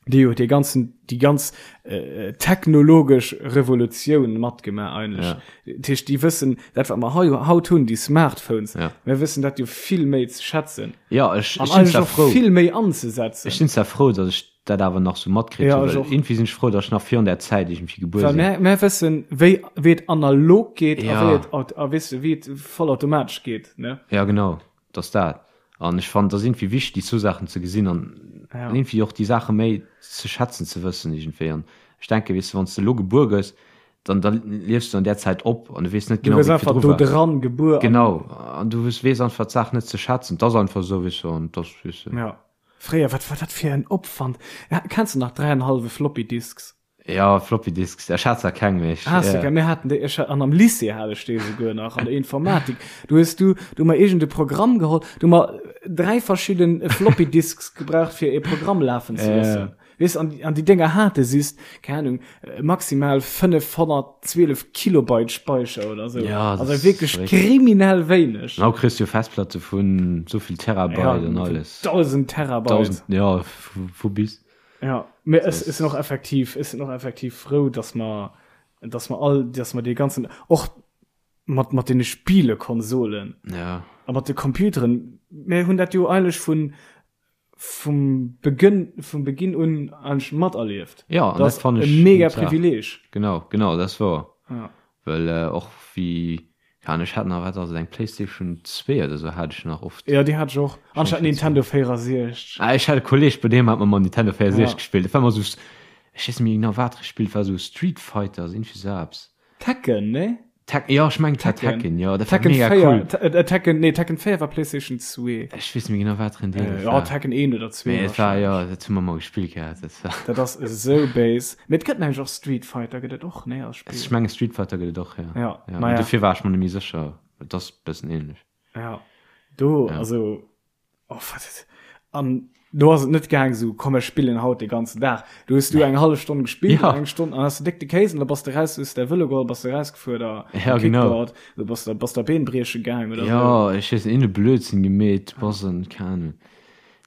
déi huet dee ganzen déi ganz äh, technologesch Revolutioun matgemaach eigentlech. Ja. Dat heescht, déi wëssen dat wat mer hei haut hunn, déi Smartphones, Ja. mir wëssen dat jo vill méi ze schätzen Ja, ech, an ech sinn eigentlech zwar och frou. vill méi anzesetzen. Ech sinn zwar frou, datt ech dat awer nach sou matkritt Ja, hunn, ech well och. irgendwie sinn ech frou, datt ech nach virun där Zäit irgendwie gebuer Well sinn. mär, mär wëssen, wéi, wéi et analog geet a Ja. wéi et, aut- a weess de, wéi et vollautomatesch geet, ne? Ja, genau. Et ass dat. An ech fannen, et ass iergendwéi wichteg, déi zwou Saachen ze gesinn an Ja. iergendwéi och déi Saache méi ze schätzen ze wëssen iergendwéi. An ech denken, weess de, wann s de elo gebuer gëss, dann, da liefs du an där Zäit op an du weess net Du genau, gëss wéi et einfach virdru do war. dran gebuer. an- Genau. An du weess einfach d'Saach net ze schätzen. Et ass einfach esou, weess du, an et ass, weess de. Ja. Fréier, wat war dat fir en Opwand? Ja, kenns du nach dräienhallwe Floppy Disks? Ja, Floppy Disks, ech hat zwar keng, mee ech. Has du keng? Mir haten déi, ech hat, an am Lycée hat ech déi esouguer nach, an der Informatik. Du hues du, du hu mer iergend e Programm geholl, du hu mer dräi verschidden Floppy Disks gebraucht, fir e Programm lafen ze loossen. Weess, an, an déi Dénger hate just, keng Ahnung, maximal 512 Kilobyte Speicher oder sou. Ja, das also ist wierklech verréckt. kriminell wéineg. An haut kriss du jo Festplatte vun souvill Terabyte Ja, an alles. 1000 Terabyte. 1000, ja, vu, vu bis. Ja, mee ech sinn och effektiv, ech sinn och effektiv frou, dass mer, dass mer all, dass mer dee ganzen, och mat, mat deene Spielekonsolen Ja. a mat de Computeren, mir hunn dat jo eigentlech vun, vum Begënn, vum Beginn un eigentlech materlieft. Ja, an Dat dat ass fann e ech mega gutt Saach. Privileeg. Genau, genau, dat ass wouer. Ja. Well och wéi, keine Ahnung, ech hat nach, wat ass et, eng Playstation 2 oder sou hat ech nach oft. Ja, déi hat ech och. An ech hat Nintendo 64. Ah, ech hat e Kolleg, bei deem hat mer mol Nintendo 64 Ja. gespillt. Dat war ëmmer sou, ech weess net méi genau, wat e gespillt, war sou Street Fighter, sou iergendwéi sou eppes. Tekken, nee? Tek, jo, ech mengen, et war Tekken. Tekken, jo, dat war Tekken mega 4, cool. Te- äh, Tekken, nee, Tekken 4 war PlayStation 2. Ech weess net méi genau, wat fir en Deel Äh, dat ja, war. Tekken 1 oder 2 Mee et war, jo, wahrscheinlech. dat hu mer mol gespillt gehat, dat war. Dat ass esou béis. Mee et gëtt mengen ech och Street Fighter, gëtt et och, nee, als Spill? Ech mengen, Street Fighter gëtt et och, jo. Ja, Ja, naja. dofir war ech mer net méi sécher. Et ass e bëssen ähnlech. Ja, do, Ja. also, oh, wat, an do ass et net gaang sou, komm ech spillen haut de ganzen Dag. Du hues du eng hallef Stonn gespillt, Ja. eng Stonn, an hast du déck de Kéis an da bass de raus, hues däi Vëlo geholl, bass de rausgefuer da Ja, genau. Kickboard, du bass da, bass da Been brieche gaang oder sou. Ja, ech weess net, een Blödsinn gemeet, bass en, keng Ahnung.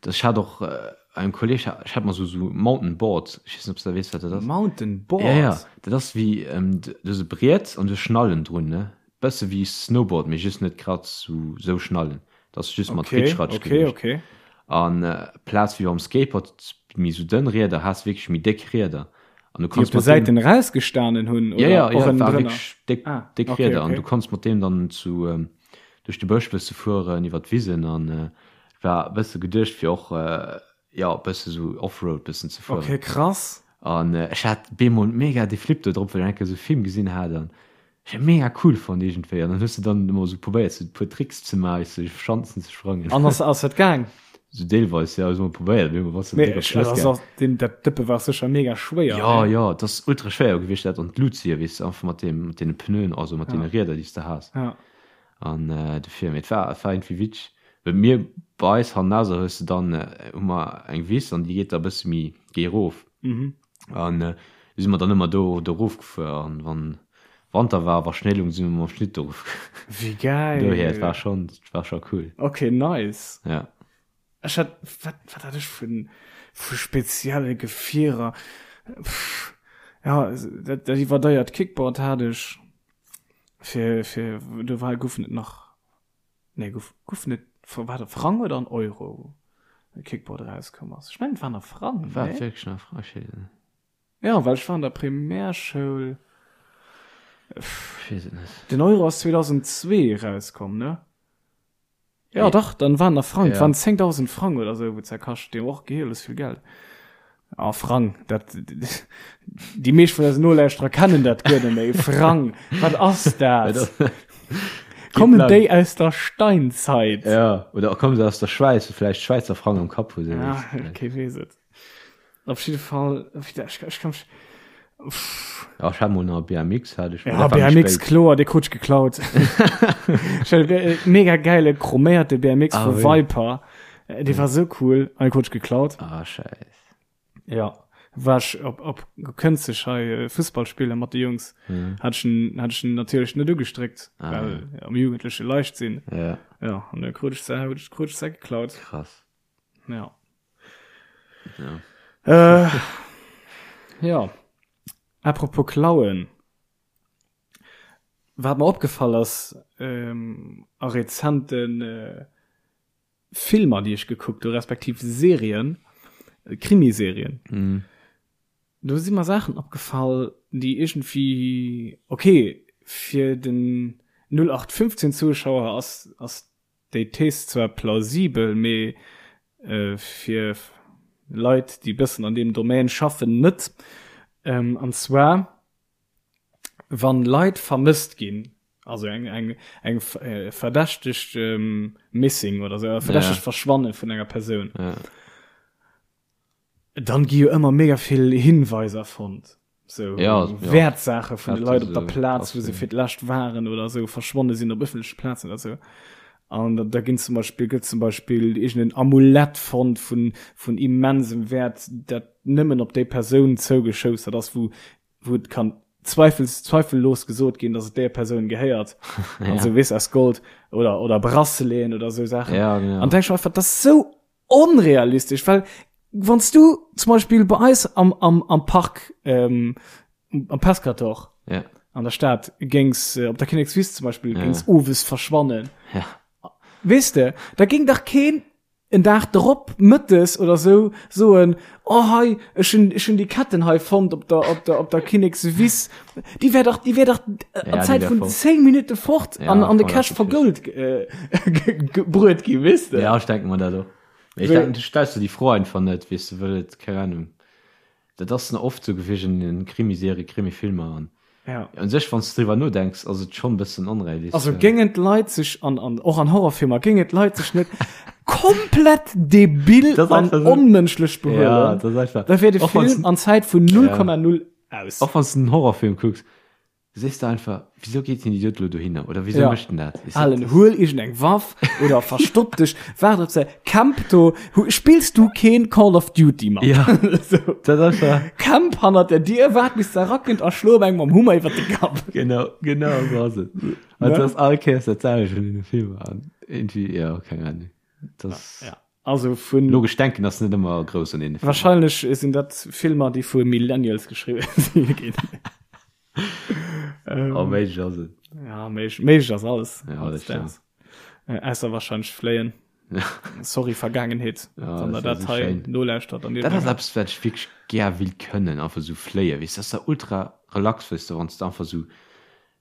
Das, ech hat och äh, engem Kolleg, ech hat mer sou, sou Mountainboard, ech weess net, ob s du weess, wat dat ass. Mountainboard? Ja, ja, dat ass wéi, ähm, du hues e Briet an du hues Schnallen drun, ne? Bësse wéi Snowboard, mee just net grad sou, sou Schnallen. Dat ass just mat Okay, Ritschratsch okay, geduecht. okay. An plaz wéi beim Skateboard méi sou dënn Rieder, has wierklech méi déck Rieder. An du Déi konns op de mat deem Säiten erausgestanen hunn Ja, oder ja, och ja, war ënnendrënner? wierklech déck, Ah, déck okay, Rieder. An okay. du konns mat deem dann zu duerch de Bësch bësse fueren, iwwer d'Wisen an war e bësse geduecht fir och, jo, bësse sou Offroad bëssen ze fueren. Okay, krass. An ech hat bemol mega de Flip do drop, well ech eng Kéier sou e Film gesinn hat an ech hat mega cool fonnt iergendwéi. An dann hues de dann ëmmer sou probéiert sou e puer Tricks ze maachen, sou iwwer Schanzen ze sprangen. An ass ass dat gaang? Sou deelweis, jo, ech hu mol probéiert, mee bass de Mee direkt op ech, d'Schlëss also gaang. ass deen, dat Dëppe war sécher mega schwéier, Jo, nee? jo, et ass ultra schwéier gewiescht dat an d'Lut zéien, weess de, einfach mat deem, mat deene Pneuen, also mat Ja. deene Rieder déi s de has. Ja. An dofir, mee et war, et war iergendwéi witzeg, well mir bei eis hannerser hues de dann, hu mer eng Wiss an déi geet da e bësse méi géi erof. Mhm. An du si mer dann ëmmer do do erofgefuer an wann Wanter war, wa Schnéi lung, si mer mam Schlitt do erofgefuer. Wéi geil! Dohier, et war schonn, et war scho cool. Okay, nice. Ja. Ech hat, wat, wat hat ech vun, Vu spezielle Gefierer. Pff, ja, dat, dat iwwerdeiert Kickboard hat ech. Fir, fir, do war, goufen et nach, nee, gouf, goufen et, war dat Frang oder an Euro, wou Kickboard erauskomm ass? Ech mengen, et waren a Frang, War et wierklech nach a Frang? Ech weess et net. Ja, well ech war an der Primärschoul. Ech weess et net. Den Euro ass 2002 erauskomm, ne? Ja, dach, dann waren der Frang, ja. waren 10.000 Frang oder so, wou zerkascht, dee och geheeles vill Geld. Ah, Frang, dat, déi meescht vun eisen Nolauschterer kennen dat guer net méi. Frang, wat ass dat? Kommen déi aus der Steinzeit? Ja, oder kommen se aus der Schwäiz, wou vläicht Schwäizer Frang am Kapp hu. Ja, kee weess et. Op jidde Fall, ech, ech kann mich, pff. Ja, ech hat mol nach e BMX, hat ech. Ja, BMX, kloer, dee krut ech geklaut. Ech hat e mega gäile chroméierte BMX ah, vu Viper. Dee war sou cool, an dee krut ech geklaut. Ah, scheiss. Ja, war ech op, op Kënzeg hei Fussball spille mat de Jungs. Mhm. Hat ech en, hat ech en natierlech net ugestréckt, ah, well ja. am Jugendleche leicht sinn. Ja. Ja, an da krut ech se, krut ech se geklaut. Krass. Ja. Ja. Äh, ja. Apropos Klauen. Wat mer opgefall ass ähm, a rezenten äh, Filmer, déi ech gekuckt hu, respektiv Serien, äh, Krimiserien. Mm. Do si mer Saachen opgefall, déi iergendwéi, okay, fir den 0815 Zuschauer ass, ass Déi Thees zwar plausibel, mee fir Leit, déi bëssen an deem Domaine schaffen, net. An zwar, wann Leit vermësst ginn, also eng, eng, eng verdächtegt Missing oder sou, e verdächtegt Verschwanne vun enger Persoun, dann gi jo ëmmer mega vill Hinweiser fonnt. So ja, Wäertsaache vun de Leit op der Plaz, wou se fir d'lescht waren oder sou, verschwonne sinn op ëffentleche Plazen oder sou. An da, da ginn zum Beispill, gëtt zum Beispill iergendeen Amulett fonnt vun, vun immensem Wäert, dat nëmmen op déi Persoun zougeschoustert ass, wou, wou et kann zweifels, zweifellos gesot ginn, dass et där Persoun gehéiert. ja. Also weess aus Gold oder, oder Braceleten oder sou Saachen. Ja, genau. An denk ech mir einfach, dat ass sou onrealistesch, well wann s du zum Beispill bei eis am, am, am Park, ähm, am Pescator ja. an der Stad géings äh, op der Kinnekswiss zum Beispill ja. géings owes verschwannen. Ja. Weess de, da géing dach keen en Dag drop mëttes oder sou soen, oh hei, ech hunn, ech hunn déi Ketten hei fonnt op der, op der, op der Kinnekswiss. Déi wär dach, déi wär dach äh, an Ja, déi Zäit wär vun fort. 10 Minutte fort Ja, an, an de voll, Cash dat vergold äh, gebruet gi, weess de? Ja, ech denke mer dat och. Mee ech Wéi- denken, du stells der déi Fro einfach net, weess de, wëll et, keng Ahnung, dat ass na oft sou gewiescht an den Krimiserien, Krimifilmer an Ja. un sech, wann s de driwwer nodenks, ass et schonn e bëssen onrealistesch. Also géingen d'Leit sech an, an och an Horrorfilmer géingen d'Leit sech net komplett debil Das ass an einfach so- onmënschlech Ja, behuelen, dat ass einfach. da wär de Och wann's Film an Zäit vun 0,0 aus. Och wann s de en Horrorfilm kucks, sees de einfach, Wisou geet den Idiot elo dohinner? Oder wisou Ja. mécht en dat? Weess de, Alen, dat- huel iergendeng Waff oder verstopp dech, waart op se, camp do, hu, spills du keen Call of Duty mat? Ja. So. Dat ass einfach. Camp hannert der Dier, waart bis se erakënnt a schlo op engem mam Hummer iwwert de Kapp. Genau, genau sou ass et. An Ne? dat ass all Kéiers dat selwecht an deene Filmer. An irgendwie, ja, keng Ahnung. Das Ja. Also vun logesch denken ass net ëmmer grouss an deene Filmer. Wahrscheinlech sinn dat Filmer, déi vu Millennials geschriwwen si ginn. Ähm, Oh, méiglech ass et. Ja, méiglech, méiglech ass alles. Ja, dat stimmt. Äh, ausser wahrscheinlech Fléien. Sorry, Vergaangenheet, Ja, wann der das wär dat so hei schéin. nolauschtert an dir Dat ass denkt, eppes, wat ech wierklech gär wéilt kënnen, einfach sou fléien. Weess, dat ass da ultra relax, weess de, wann s de einfach sou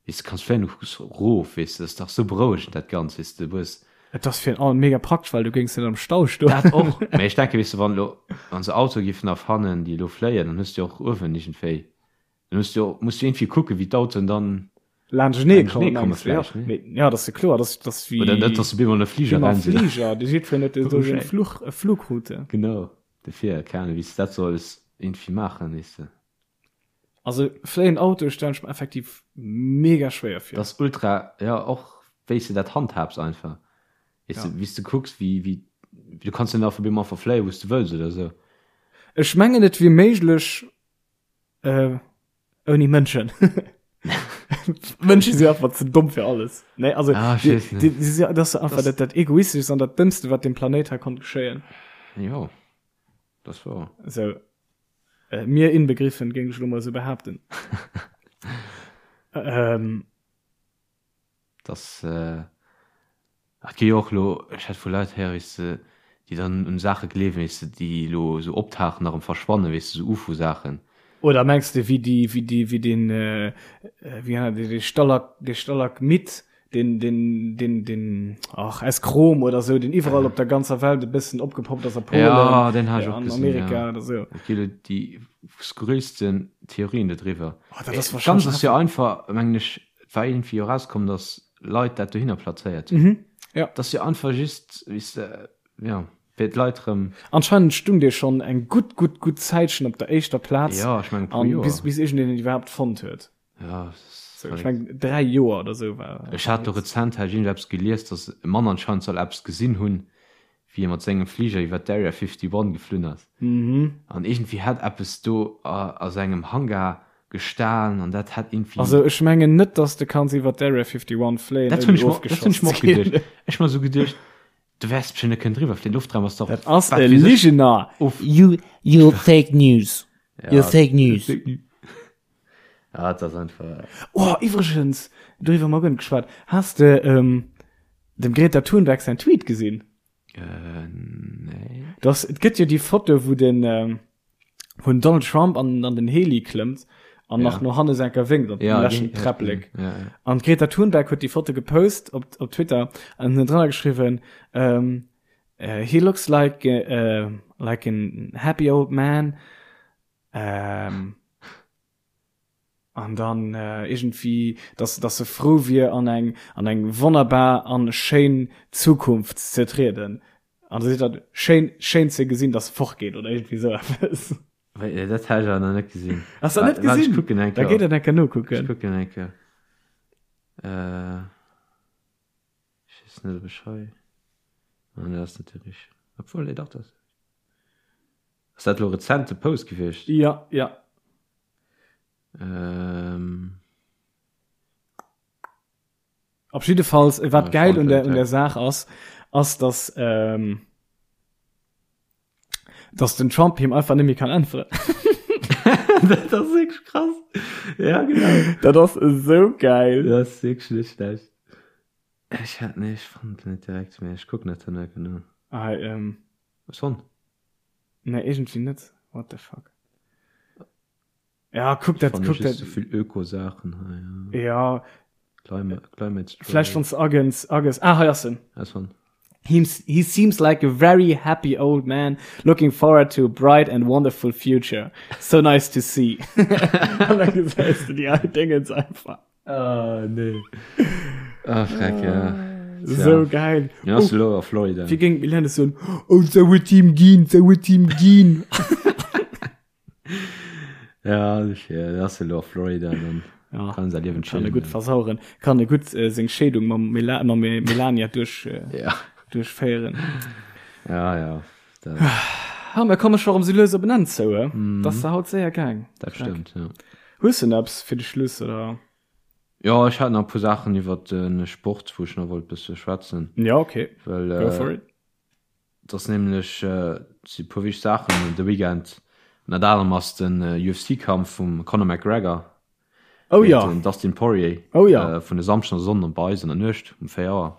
Weess de, kanns fléien, du kucks erof, weess de, dat ass dach sou berouegend dat Ganzt, weess de, du hues. Et ass virun allem mega praktesch, well du géings net am Stau stoen. Dat och, mä ech denken, weess de, wann elo, wann se Autoe giffen erfannen, déi elo fléien, dann hues de jo och uewen iergendwéi, dann hues de jo, muss du iergendwéi kucken, wéi d'Autoen dann Laanschtenee laanschtenee kommen, komme mengs de, ja. vläicht, ne? Mee ja, dat ass jo kloer, dat ass, dat ass wéi. Oder net, dass se op eemol an e Fliger wéi mam ran sinn. Fliger, déi jiddwereen huet esou seng Fluch, Flugroute. Genau, dofir, keng Ahnung, wéi s de dat solls iergendwéi maachen, weess de. Also fléien Autoe stellen ech mer effektiv mega schwéier vir. Dat ass ultra, jo och wéis de dat handhabs einfach, weess de, wéis de kucks wéi wéi du kanns jo net einfach op eemol einfach fléien wous de wëlls oder sou. Ech mengen et wier méiglech ouni Mënschen. Mënsche si einfach ze domm fir alles. Nee also Ah, ech weess net. déi si dat ass einfach dat dat egoisteschst an dat dëmmste wat dem Planéit hei konnt geschéien. Jo. Dat ass wouer. Sou, äh, mir inbegriffen, géing ech elo mol sou behaapten. ähm. Dass, äh, et gi jo och elo, ech hat vu Leit héieren, weess de, déi dann un Saache gleewen, weess de, déi elo sou optauchen a rëm verschwannen, weess de, sou Ufo-Saachen. Oder mengs de wéi déi, wéi déi, wéi deen, äh, wéi nennt een dee Stalak, dee Stalagmit, deen, deen, deen, deen, ach, aus Chrom oder sou, deen iwwerall op der ganzer Welt e bëssen opgepoppt ass, a Polen, Ja, deen hat ech och an gesinn, Amerika ja. oder sou. Et gi elo déi skurrilsten Theorien dodriwwer. Oh, dat ass Ganz wahrscheinlech ass jo einfach, mengen ech, et war iergendwéi jo erauskomm, datt Leit dat dohinner plazéiert hunn. Mhm, ja. Dat ass jo einfach just, weess de, ja, fir d'Leit rëm. Anscheinend stung dee schonn eng gutt, gutt, gutt Zäitchen op der éischter Plaz. Ja, ech mengen e puer An Joer. bis, bis iergendeen en iwwerhaapt fonnt huet. Ja, das ist So, ich verréckt. meng 3 Joer oder sou war. Ech hat do rezent hat ech iergend eppes gelies, datt e Mann anscheinend soll eppes gesinn hunn, wéi e mat sengem Fliger iwwer d'Area 51 geflunn ass. Mhm. An iergendwéi hätt eppes do a a sengem Hangar gestan an dat hätt iergendwéi. Also ech mengen net, datt s de kanns iwwer d'Area 51 fléien, Dat hunn ouni ech mer, dat hunn ofgeschoss ech mer ze och ginn. geduecht. Ech mer sou geduecht, du wäers bestimmt net kënnen driwwer fléien, Loftraum ass dach Dat ass wat e weess ech Ligener! of. You, you fake news. Ja, You fake news. fake news. Ja, dat ass einfach. Oh, iwwregens, doriwwer hu mer guer net geschwat. Has de ähm, dem Greta Thunberg säin Tweet gesinn? Äh, nee. Dass, et gëtt jo déi Foto, wou den, ähm, wou den Donald Trump an, an den Heli klëmmt an Ja. nach no hanne senker wénkt op Ja, dem leschten déi- ja, Träpplek. Ja, ja. An d'Greta Thunberg huet déi Foto gepost op, op Twitter an huet drënner geschriwwen, ähm, äh, he looks like, äh, like an happy old man. Ähm, an dann äh, irgendwie, dass, dass se frou wier an eng, an eng wonnerbar an schéin Zukunft ze trieden. An da seet dat schéin, schéin ze gesinn, dass se fortgeet oder irgendwie sou eppes. Wéi, äh, dat hat ech awer nach net gesinn. Hast du dat net Wa- warte, gesinn? Ech kucken eng Da Kéier. geet dat eng Kéier Ech nokucken. kucken eng Kéier. Äh, ech weess net, ob ech hei. Ah, nee, dat ass net déi richteg. Obwuel, nee, dach, dat ass. Ass dat elo rezent de Post gewiescht? Ja, ja. Ähm. Op jiddefalls, wat Ja, geil un der, Frontend, un der ja. Saach ass, ass, dass, ähm, dass den Trump him einfach net méi kann äntweren. Dat ass wierklech krass. Ja, genau. Dat ass esou geil. Dat ass wierklech net schlecht. Ech hat, nee, ech fannen et net direkt, mee ech kucken dat dann nach genau. Ah, ähm. Hues fonnt? Nee, irgendwie net. What the fuck? Ja, kuck dat, kuck dat. So vill Öko-Saachen hei. Ja. Climate, climate Strike. Vläicht wanns de agens, ages. Ah, hei ass en. Ass fonnt. He, he seems like a very happy old man looking forward to a bright and wonderful future. So nice to see. An da gesäis du déi al Dingens einfach. Ah, nee. Ah, freck, ja. Tja. So geil. Ja, ass elo a Florida. Wéi géing d'Milène soen, Oh, sou huet him ginn, sou huet him ginn. Ja, ja, ass elo a Florida, dann Ja, kann säi Liewen kann e chillen. gutt versaueren. Kann e gutt äh, seng Scheedung mam, Mela mam Melania duerch, äh, Ja, duerchféieren. ja, ja. Dat, Ha, mir komme scho rëm sou lues op en Enn zou, he? Mm. Dat ass haut séier gaang. dat stëmmt, ja. Hues de nach eppes fir de Schluss, oder? Jo, ech hat nach e puer Saachen iwwer de Sport, wou ech nach wollt bësse schwätzen. Ja, okay. Well, Go for it. Et ass nämlech, et si puer wichteg Saachen de Weekend. Ënnert anerem ass den UFC-Kampf vum Conor McGregor Oh géint ja. den Dustin Poirier Oh ja. vun e Samschden a Sonnden bei eis an der Nuecht um 4 Auer.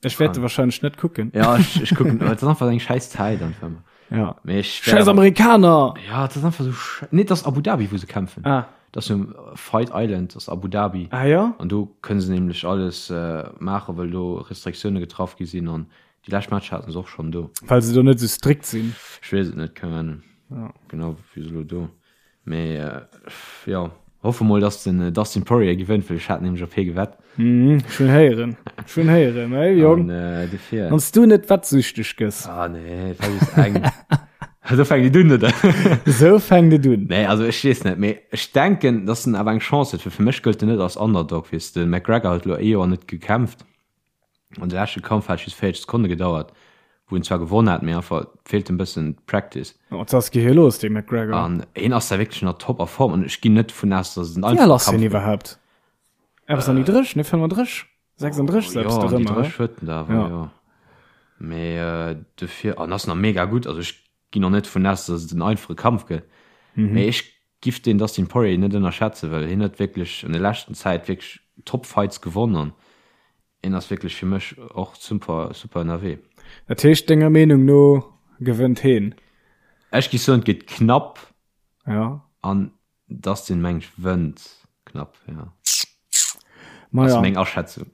Ech wäert e wahrscheinlech net kucken. Ja, ech, ech kucken, et ass einfach eng schäiss Zäit einfach ëmmer. Ja. Mee ech wär Schäiss Amerikaner! Ja, et ass einfach sou schä-, nee, et ass Abu Dhabi, wou se kämpfen. Ah. Et ass um Fight Island, ass Abu Dhabi. Ah ja? An do kënne se nämlech alles maachen, well do Restriktioune getraff gi sinn an Déi lescht Matcher haten se och schonn do. Well se do net esou strikt sinn. Ech weess et net, keng Ahnung. Ja. Genau, wéi se elo do. Mee jo, hoffe mol, dass den Dustin Poirier gewënnt, well ech hat nämlech op hie gewett. Mhm, ech hunn héieren. Ech hunn héieren, hey Jong. An äh, dofir. Wann s du net wettsüchteg gëss. Ah nee, dat war just eng. Esou fänkt et un, oder? Esou fänkt et un. Nee, also ech weess net, mee ech denken, dass en awer eng Chance huet, well fir mech gëllt en net als Underdog, weess de. De McGregor huet elo ee Joer net gekämpft. An de leschte Kampf hat just 40 Sekonne gedauert, wou en zwar gewonn hat, mee einfach feelt em bëssen d'Practice. Wat ass gi hie los, dee McGregor? An hien ass da wierklech an der Top a Form an ech ginn net dovun aus, dass et en Wéi al einfache ass hien Kampf gëtt. iwwerhaapt? Eppes an déi 30, ne 35, 36, Jo, eppes an déi dorëmmer, 30 huet en da awer, Ja. jo. Mee dofir, an ass nach mega gutt, also ech. ginn och net dovun aus, dass et en einfache Kampf gëtt. Mee ech giff den Dustin Poirier net ënnerschätzen, well hien huet wierklech an der leschten Zäit wierklech top Fights gewonn an hien ass wierklech fir mech och super super ënnerwee. Dat heescht denger Meenung no gewënnt heen? Ech giff soen et gëtt knapp Ja. an Dustin meng ech wënnt knapp, ja. Ma Ass ja. meng Aschätzung.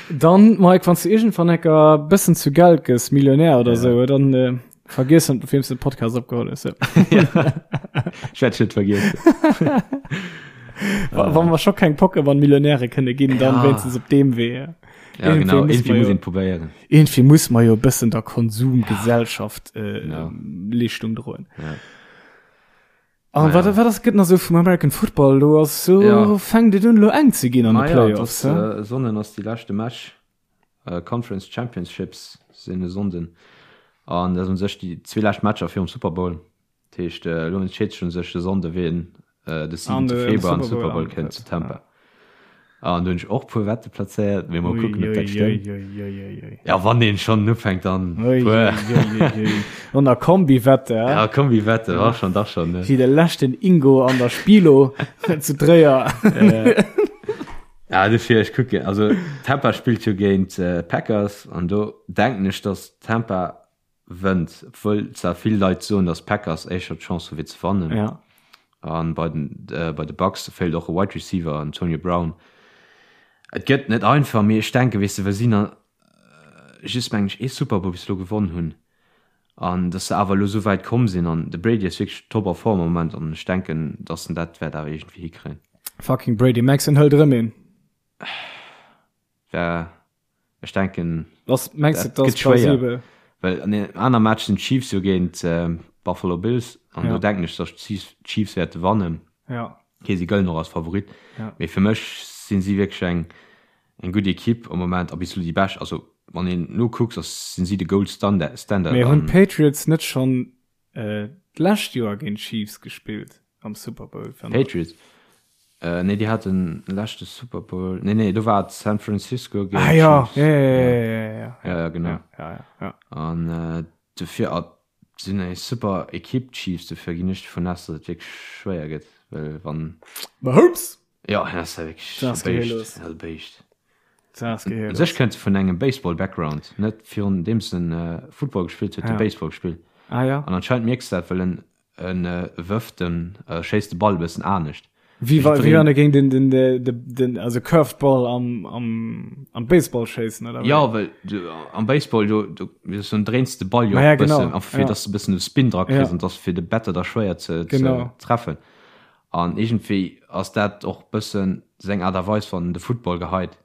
Dann Mike, wann du irgendwann ecker bëssen zu Geld gëss, Millionär oder Ja. sou, dann äh, vergiess net, op weems du den Podcast opgeholl hues. Ja. Ech wäert net vergiessen. Wa wann mer scho keng Pokémon-Millionäre kënne ginn, dann Ja. wéinstens op deem Wee. Ja. Ja, genau. Irgendwie muss Irgendwie man muss jo- een probéieren. Irgendwie muss man jo bëssen der Konsumgesellschaft äh, Genau. Leeschtung droen. Ja. An Naja. wat, wat ass gëtt nach sou vum American Football lo ass so Ja. fänkt et un lo eng ze ginn an de Ah ja, Playoffs. das, hä? äh, Sonnen ass déi leschte Match. Äh, Conference Championships sinn e Sonnden. An dat un sech déi zwee lescht Matcher virum Super Bowl. Dat heescht, äh, elo entscheet sech un sech de Sonnde wien äh, de 7. An de Februar an Super Super Bowl Bowl kënnt antrëtt, zu Tampa. An do hunn ech och puer Wette plazéiert, mee mol Ui, kucken, ob ui, dat stëmmt. ui, ui, ui, ui. Ja, wann een schonn ufänkt, dann Ui, puer. ui, ui, ui, ui. An der Kombi-Wette, hä? Ja, Kombi-Wette, war schon, dach schon, ne? Wéi de leschten Ingo an der Spilo zu Tréier. Ja, dofir, ech kucken, also Tampa spillt jo géint Packers an do denken ech, dass Tampa wënnt, obwuel zwar vill Leit soen, dass d'Packers éischter d'Chance hu fir ze wannen. Ja. An bei den äh, bei de Bucks feelt och e Wide Receiver, Antonio Brown. Et gëtt net einfach, mee ech denken, weess de, well si na just mengen ech ee Super Bowl bis elo gewonn hunn an dass se awer elo esou wäit komm sinn an de Brady ass wierklech top a Form am Moment an ech denken, dass en dat wäert awer iergendwéi hikréien. Fucking Brady, mengs en hëlt erëm een? Wär Ech denken, Was mengs du, dat dat gëtt ass schwéier, plausibel? well an deem aner Match sinn d'Chiefs jo géint d'Buffalo Bills an do Ja. denken ech, datt d'Chiefs d'Chiefs wäerte wannen. Ja. Okay, si gëllen och als Favorit, Ja. mee fir mech sinn si wierklech eng eng gutt Ekipp am Moment a bis elo déi bescht. Also wann een nokucks, ass sinn si de Gold Standard Standard Mee hunn an d'Patriots net schonn d'lescht Joer géint d'Chiefs gespillt am Super Bowl? Patriots? Äh, nee, déi haten leschte Super Bowl. Nee, nee, do war et San Francisco géint Ah ja, Chiefs. ja, ja, ja, ja, ja, Ja, ja, genau. ja, ja, ja, ja. An äh, dofir ah, sinn eng super Ekipp d'Chiefs, dofir ginn ech dovun aus, datt et wierklech schwéier gëtt, well wann Mahomes! Ja, hien ass ja wierklech Dat ass e Béischt, geheellos. e Béischt. Dat ass U geheellos. sech kënnt e vun engem Baseball-Background, net virun deems en äh, Football gespillt huet, huet Ja. e Baseball gespillt. Ah ja. An anscheinend mierks du dat, well en En wërft den, schéisst de Ball e bëssen anescht. Wéi wa, wéi wann e géing den, den, den, den, also Curved Ball am, am, am Baseball schéissen, oder wéi? Jo, well du am Baseball, do, do, wéi soll ech soen, dréins de Ball jo Ma ja, och e bëssen, genau, einfach fir ja. dass de e bëssen de Spin dra kriss Ja. an dass fir de Batter da schwéier ze, ze Genau. treffen. An iergendwéi ass dat och bëssen seng Aart a Weis, wann en de Football geheit.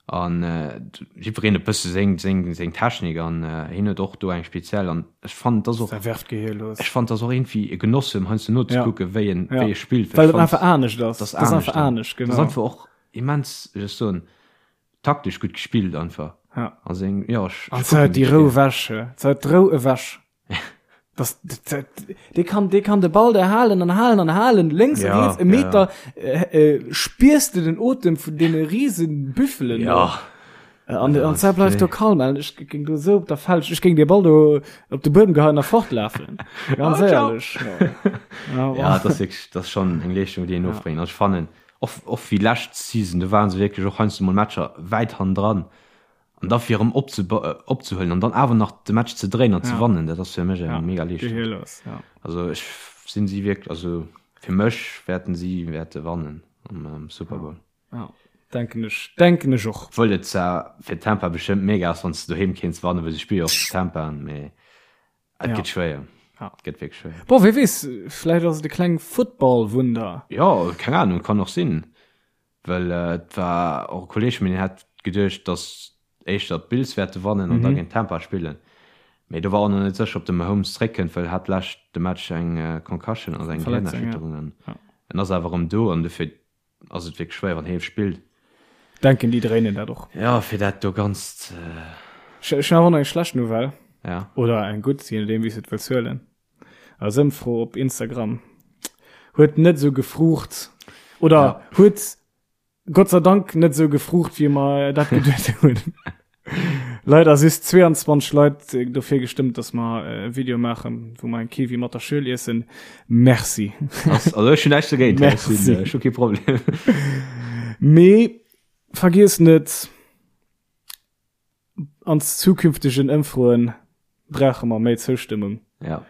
An jiddwereen huet bësse seng, seng, seng Technik an hien huet och do eng speziell an ech fannen et ass och, Dat werft Gehier los. ech fannen et ass och iergendwéi e Genoss him heiansdo nozekucken, wéi en, Ja. wéi e spillt, Well well et ech einfach fannen anescht ass. dat ass Dat ass anescht einfach an anescht, dat ass genau. einfach och immens, wéi soll ech soen, taktesch gutt gespillt einfach. Ja. A seng, jo, ech, An ech se kucken huet déi wierklech Rou gär. ewech, he. Se huet d'Rou ewech. Das, das, dee kann, dee kann de Ball da halen an halen an halen, lénks Ja, a riets e ja, Meter, äh, äh, spiers de den Otem vun deene riesen Büffelen do. Ja. Äh, An, an se bleift do kalm, an ech géing do sou op der Felsch, ech géing dee Ball do op de Buedem geheien a fortlafen. Ganz Ah, ciao. éierlech. Ja. Ja, Ja, dat ass wierklech, dat ass schonn eng Leeschtung, déi een ofbréngt. An ech fannen, och, och wéi lescht Season, do ware se wierklech och heiansdo mol Matcher wäit hannendran. An da fir erëm opzehuelen an dann awer nach de Match ze dréinen an ze wannen, dat ass fir mech eng mega Leeschtung. Also ech sinn si wierklech, also fir mech wäerten si wäerte wannen am Super Bowl. Ja, denken ech, denken ech och. Obwuel et zwar fir Tampa bestëmmt mega ass, wann s de doheem kéints wannen, well si spille jo och zu Tampa, mee et gëtt schwéier. Et gëtt wierklech schwéier. Bon, wie weess, vläicht ass et e kleng Football-Wunder. Jo, keng Ahnung, kann och sinn. Well et war och e Kolleeg vun mir, deen hat geduecht, datt éischter d'Bills wäerte wannen an da géint Tampa spillen. Mee do war och nach net sécher, ob de Mahomes zeréckkënnt, well hat lescht de Match eng Concussion, also eng Gehirnerschütterung an en ass awer erëm do an dofir ass et wierklech schwéier, wann hie spillt. Denken déi dréinen dat och. Jo, fir dat do ganzt. Ech hunn awer och nach eng schlecht Nouvelle. Ja. Oder eng gutt, je nodeem wéi s de et wëlls huelen. Eis Ëmfro op Instagram huet net esou gefruucht oder ja. huet Gott sei Dank net esou gefruucht, wéi mer dat geduet hunn. Leider si 22 Leit äh, dofir gestëmmt, dass mer äh, e Video maachen, wou mer eng Kiwi mat der Schuel iessen. Merci. Ass, also ech hunn näischt dogéint, ech sinn, Merci. äh, ech hu kee Problem. Mee vergiess net, an zukünftegen Ëmfroen brauche mer méi Zoustëmmung. Ja.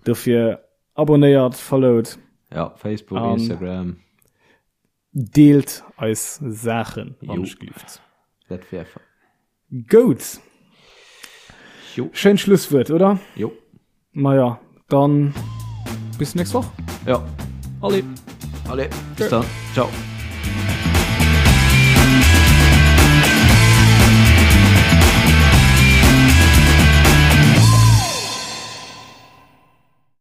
Dofir abonnéiert, followt. Ja, Facebook, An Instagram. Deelt eis Saachen, wann ech gelift. Dat wär. Goud. Jo. Schéint Schlusswuert, oder? Jo. Maja, dann bis nächst Woch. Ja. Allez. Allez, bis dann. Ciao.